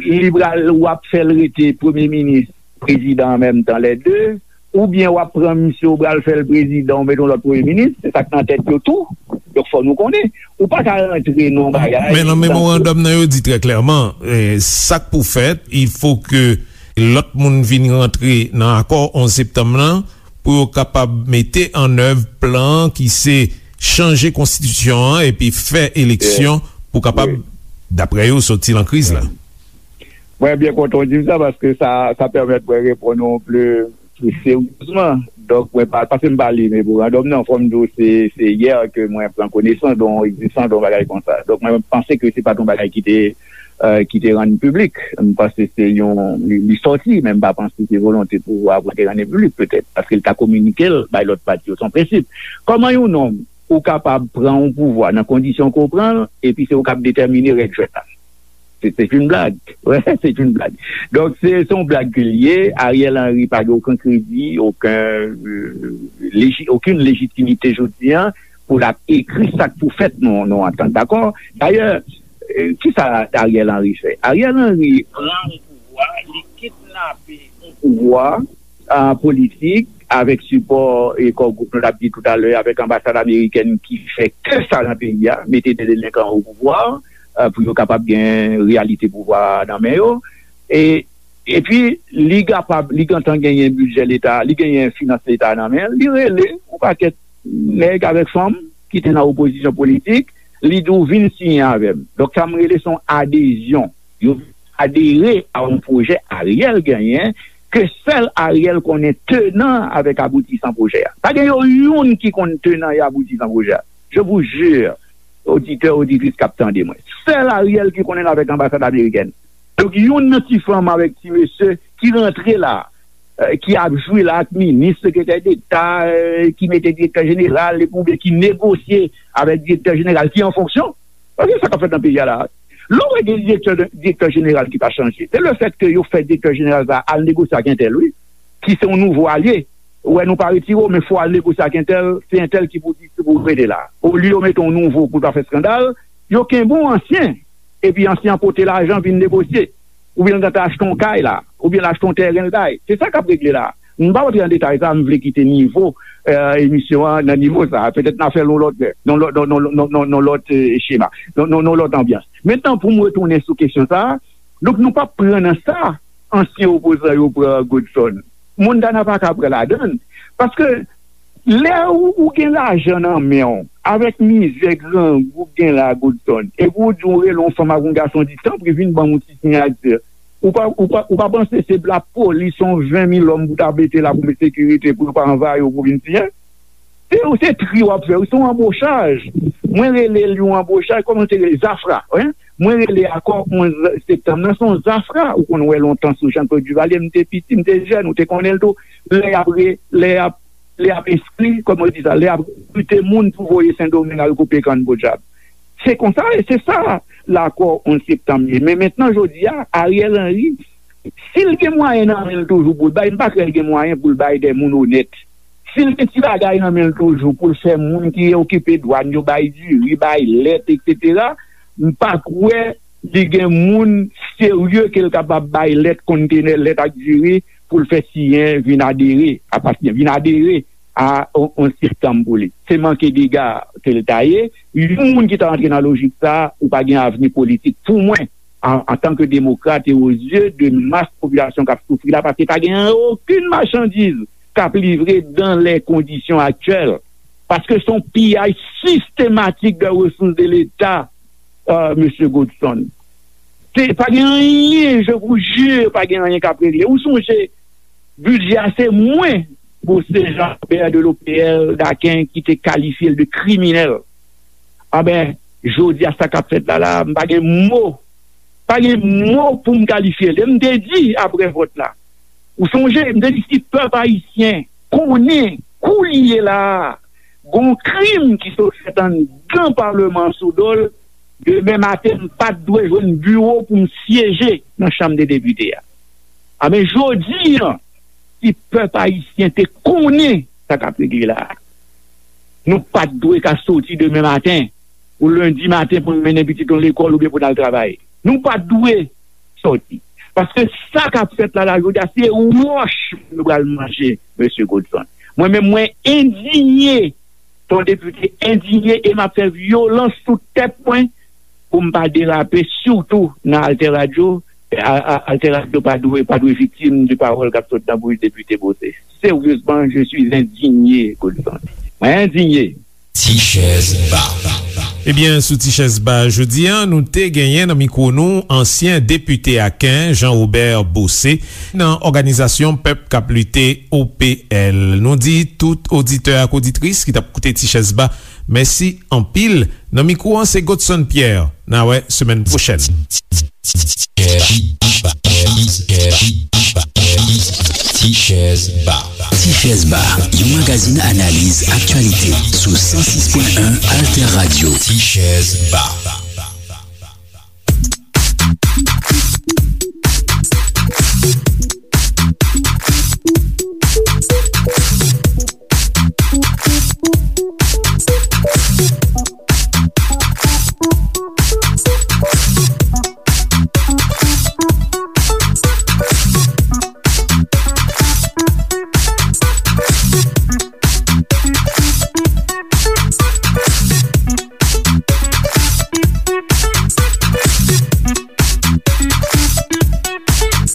li pral, w ap fè l rete premye minis, prezidan an menm tan, lè de, oubyen w ap pran misye, w pral fè l prezidan, w mete yon lòt premye minis, se sa k nan tèt yo tou. Donk, fò nou konnen. Ou pa ka rantre nan yon bagay. Men nan memorandòm nan, yo di trè klèman, sa k pou fèt, il faut que lòt moun vin rantre nan akò onz septanm nan, pou yo kapab mete an èv plan ki se chanje konstitisyon an epi fè eleksyon pou kapab, daprè yo, soti nan kriz la. Mwen byen kontan w di m sa, paske sa, sa pèmèt mwen reponn ou pli, pli seryezman. Donk, mwen pa, paske m pa li memorandòm nan, fò m di w se, se yè ke mwen pran konesans de yon egzistans de yon bagay konsa. Donk, mwen panse ke se pa t yon bagay ki te, ki te rann piblik. M panse se yon, li, li sòti, men m pa panse se volonte pouvwa a pou te rann li piblik, petèt, paske l ta kominike l bay lòt pati yo, se yon prensip. Kòman yon nonm ou kapab pran yon pouvwa nan kondisyon ke w pran l, epi se ou k ap detèmine règ jwèt la? C'est, c'est une blague. Ouais, c'est une blague. Donk, se, se yon blag ke l ye. Ariel Henry pa gen okenn kredi, okenn, euh, leji-, okenn lejitimite jodi a pou l ap ekri sa k pou fèt nan, nan antant. Dakò? Dayè, euh, kisa Ariel Henry fè? Ariel Henry pran yon pouvwa, li kidnape yon pouvwa, politik, avèk sipò e Core Group, nou t ap di toutalè, avèk anbasad amerikèn ki fè ke sa nan peyi a, mete de delenkan o pouvwa, pou yo kapab gen reyalite pouvwa a nan men yo. E epi, li kapab, li gentan genyen bidjè leta, li genyen finans leta nan men l, li rele yon pakèt nèg avèk fanm ki te nan opozisyon politik, li di w vin siyen avè m. Donk, sa m rele se yon adezyon. Yo adere a yon pwojè Ariel genyen, ke sèl Ariel konnen tenan avèk aboutisan pwojè a. Pa gen yo youn ki konn tenan e aboutisan pwojè a. Je vous jure, oditè, oditris k ap tande mwen. Sèl Ariel ki konnen l avèk anbasad amerikèn. Donk, youn nan ti fanm avèk ti mesye ki rantre la, ki ap jwe la ak minis, sekretè deta, ki mete direktè jeneral, epi oubyen ki negosye avèk direktè jeneral ki an fonksyon. Paske sa k ap fèt nan peyi a la, lè w wè gen direktè, direktè jeneral ki pa chanje, se lefètke yo fè direktè jeneral sa a al negosye ak entèl, wi, ki se yon nouvo alye. Ou wè, nou pa retire w, men fò w al negosye ak entèl, se entèl ki pou di, ki pou rete la. Olye yo mete yon nouvo pou l pa fè eskandal, yo kenbe yon ansyen, epi ansyen an pote lajan vin negosye. Oubyen l gentan achte yon kay la, oubyen l achte yon tèren l bay. Se sa k ap regle la. M pa antre nan detay sa, m vle kite nivo, eh, emisyon an nan nivo sa. Petèt n a fè l yon lòt lè, nan lòt, nan, nan, nan, nan, nan lòt, eh, chema, nan, nan, nan lòt anbyans. Mentnan, pou m retounen sou kesyon sa a, donk, nou p ap pran nan sa ansyen opozan yo pran Godson. Montana pa ka pran ladan l. Paske lè ou, ou gen lajan nan men w, avèk mizè grangou k gen la, Godson, epi ou di w rele yon fanm ak yon gason, di, tanpri, vin ban m yon ti siyati. Ou pa, ou pa, ou pa panse se lapolis, yon ven mil òm pou ta mete la pou met sekirite, pou yo pa anvayi w pou vin siyen? Se, se tri w ap fè, se yon anbochaj. Mwen rele l yon anbochaj, kòman te rele? Zafra, wi. Mwen rele akò onz septanm nan, se yon zafra. Ou konn wè lontan sou Jean-Claude Duvalier, m te piti, m te jèn, ou te konnen l tou. Lè y ap re-, lè y ap, lè y ap enskri, kòman yo di sa, lè y ap rekrite moun pou voye Sendomeng al koupe kann podyab. Se konsa, e se sa lakò onz septanm ye. Men mentnan, jodi a, Ariel Henry, si l gen mwayen nan men l toujou pou l bay, m pa kwè l gen mwayen pou l bay de moun onèt. Si l gen ti bagay nan men l toujou pou l fè moun ki okipe dwàn yo bay diri, bay lèt, etsetera, m pa kwè li gen moun serye ke l kapab bay lèt, kontenè lèt ak diri pou l fè siyen vin adere, apatyen, vin adere a on, on septanm pou li. Se manke dega ke l ta ye. Yon moun ki ta rantre nan lojik sa a, ou pa gen avni politik. Pou mwen, an, antanke demokrat e o zye de mas popilasyon k ap soufri la, paske pa gen okenn machandiz k ap livre dans les conditions actuelles. Paske se yon piyaj sistematik de resous de Leta, euh, mesye Godson. Se, pa gen anyen, je vous jure, pa gen anyen k ap regle. Ou sonje, bidjè a se mwen, Bose Jean Robert de l'O P L Daken, ki te kalifye l de kriminèl. Anben, jodi a sa k ap fèt la, la, m pa gen mo. Pa gen mo pou m kalifye l. E m te di apre vòt la. Ou sonje, m te di si pèp ayisyen konnen kounye la a, gon krim ki sot fèt anndan Palman an sou do l, demen maten, m pa t dwe jwenn biwo pou m syeje nan Chanm de Depite a. Anben, jodi a, si pèp ayisyen te konnen sa k ap regle la a, nou pa t dwe ka soti demen maten, ou lendi maten pou n mennen pitit nou lekòl oubyen pou n al travay. Nou pa t dwe sòti. Paske sa k ap fèt la, la, jodi a, se wòch nou pral manje, mesye Godson. Mwen menm, mwen endinye, se yon depite endinye, e m ap fè vyolans sou tèt mwen pou m pa derape, sitou nan Alter Radio. A, a, Alter Radio pa dwe, pa dwe viktim de pawòl k ap sot nan bouch depite Bose. Sérieusement, je suis indigné, Godson. Mwen endinye. Ti chèz ba. Ebyen, sou Ti chèz ba jodi a, nou te genyen nan mikwo nou ansyen depite Aken, Jean Robert Bose, nan òganizasyon Pèp k ap Lite, O P L. Nou di tout oditè ak oditris ki t ap koute Ti chèz ba, mèsi anpil. Nan mikwo an, se Godson Pierre. N a wè semèn pwochèn. Ti chèz ba. Ti chèz ba, yon magazin analiz aktyalite sou san sis pwen en Alter Radio. Ti chèz ba.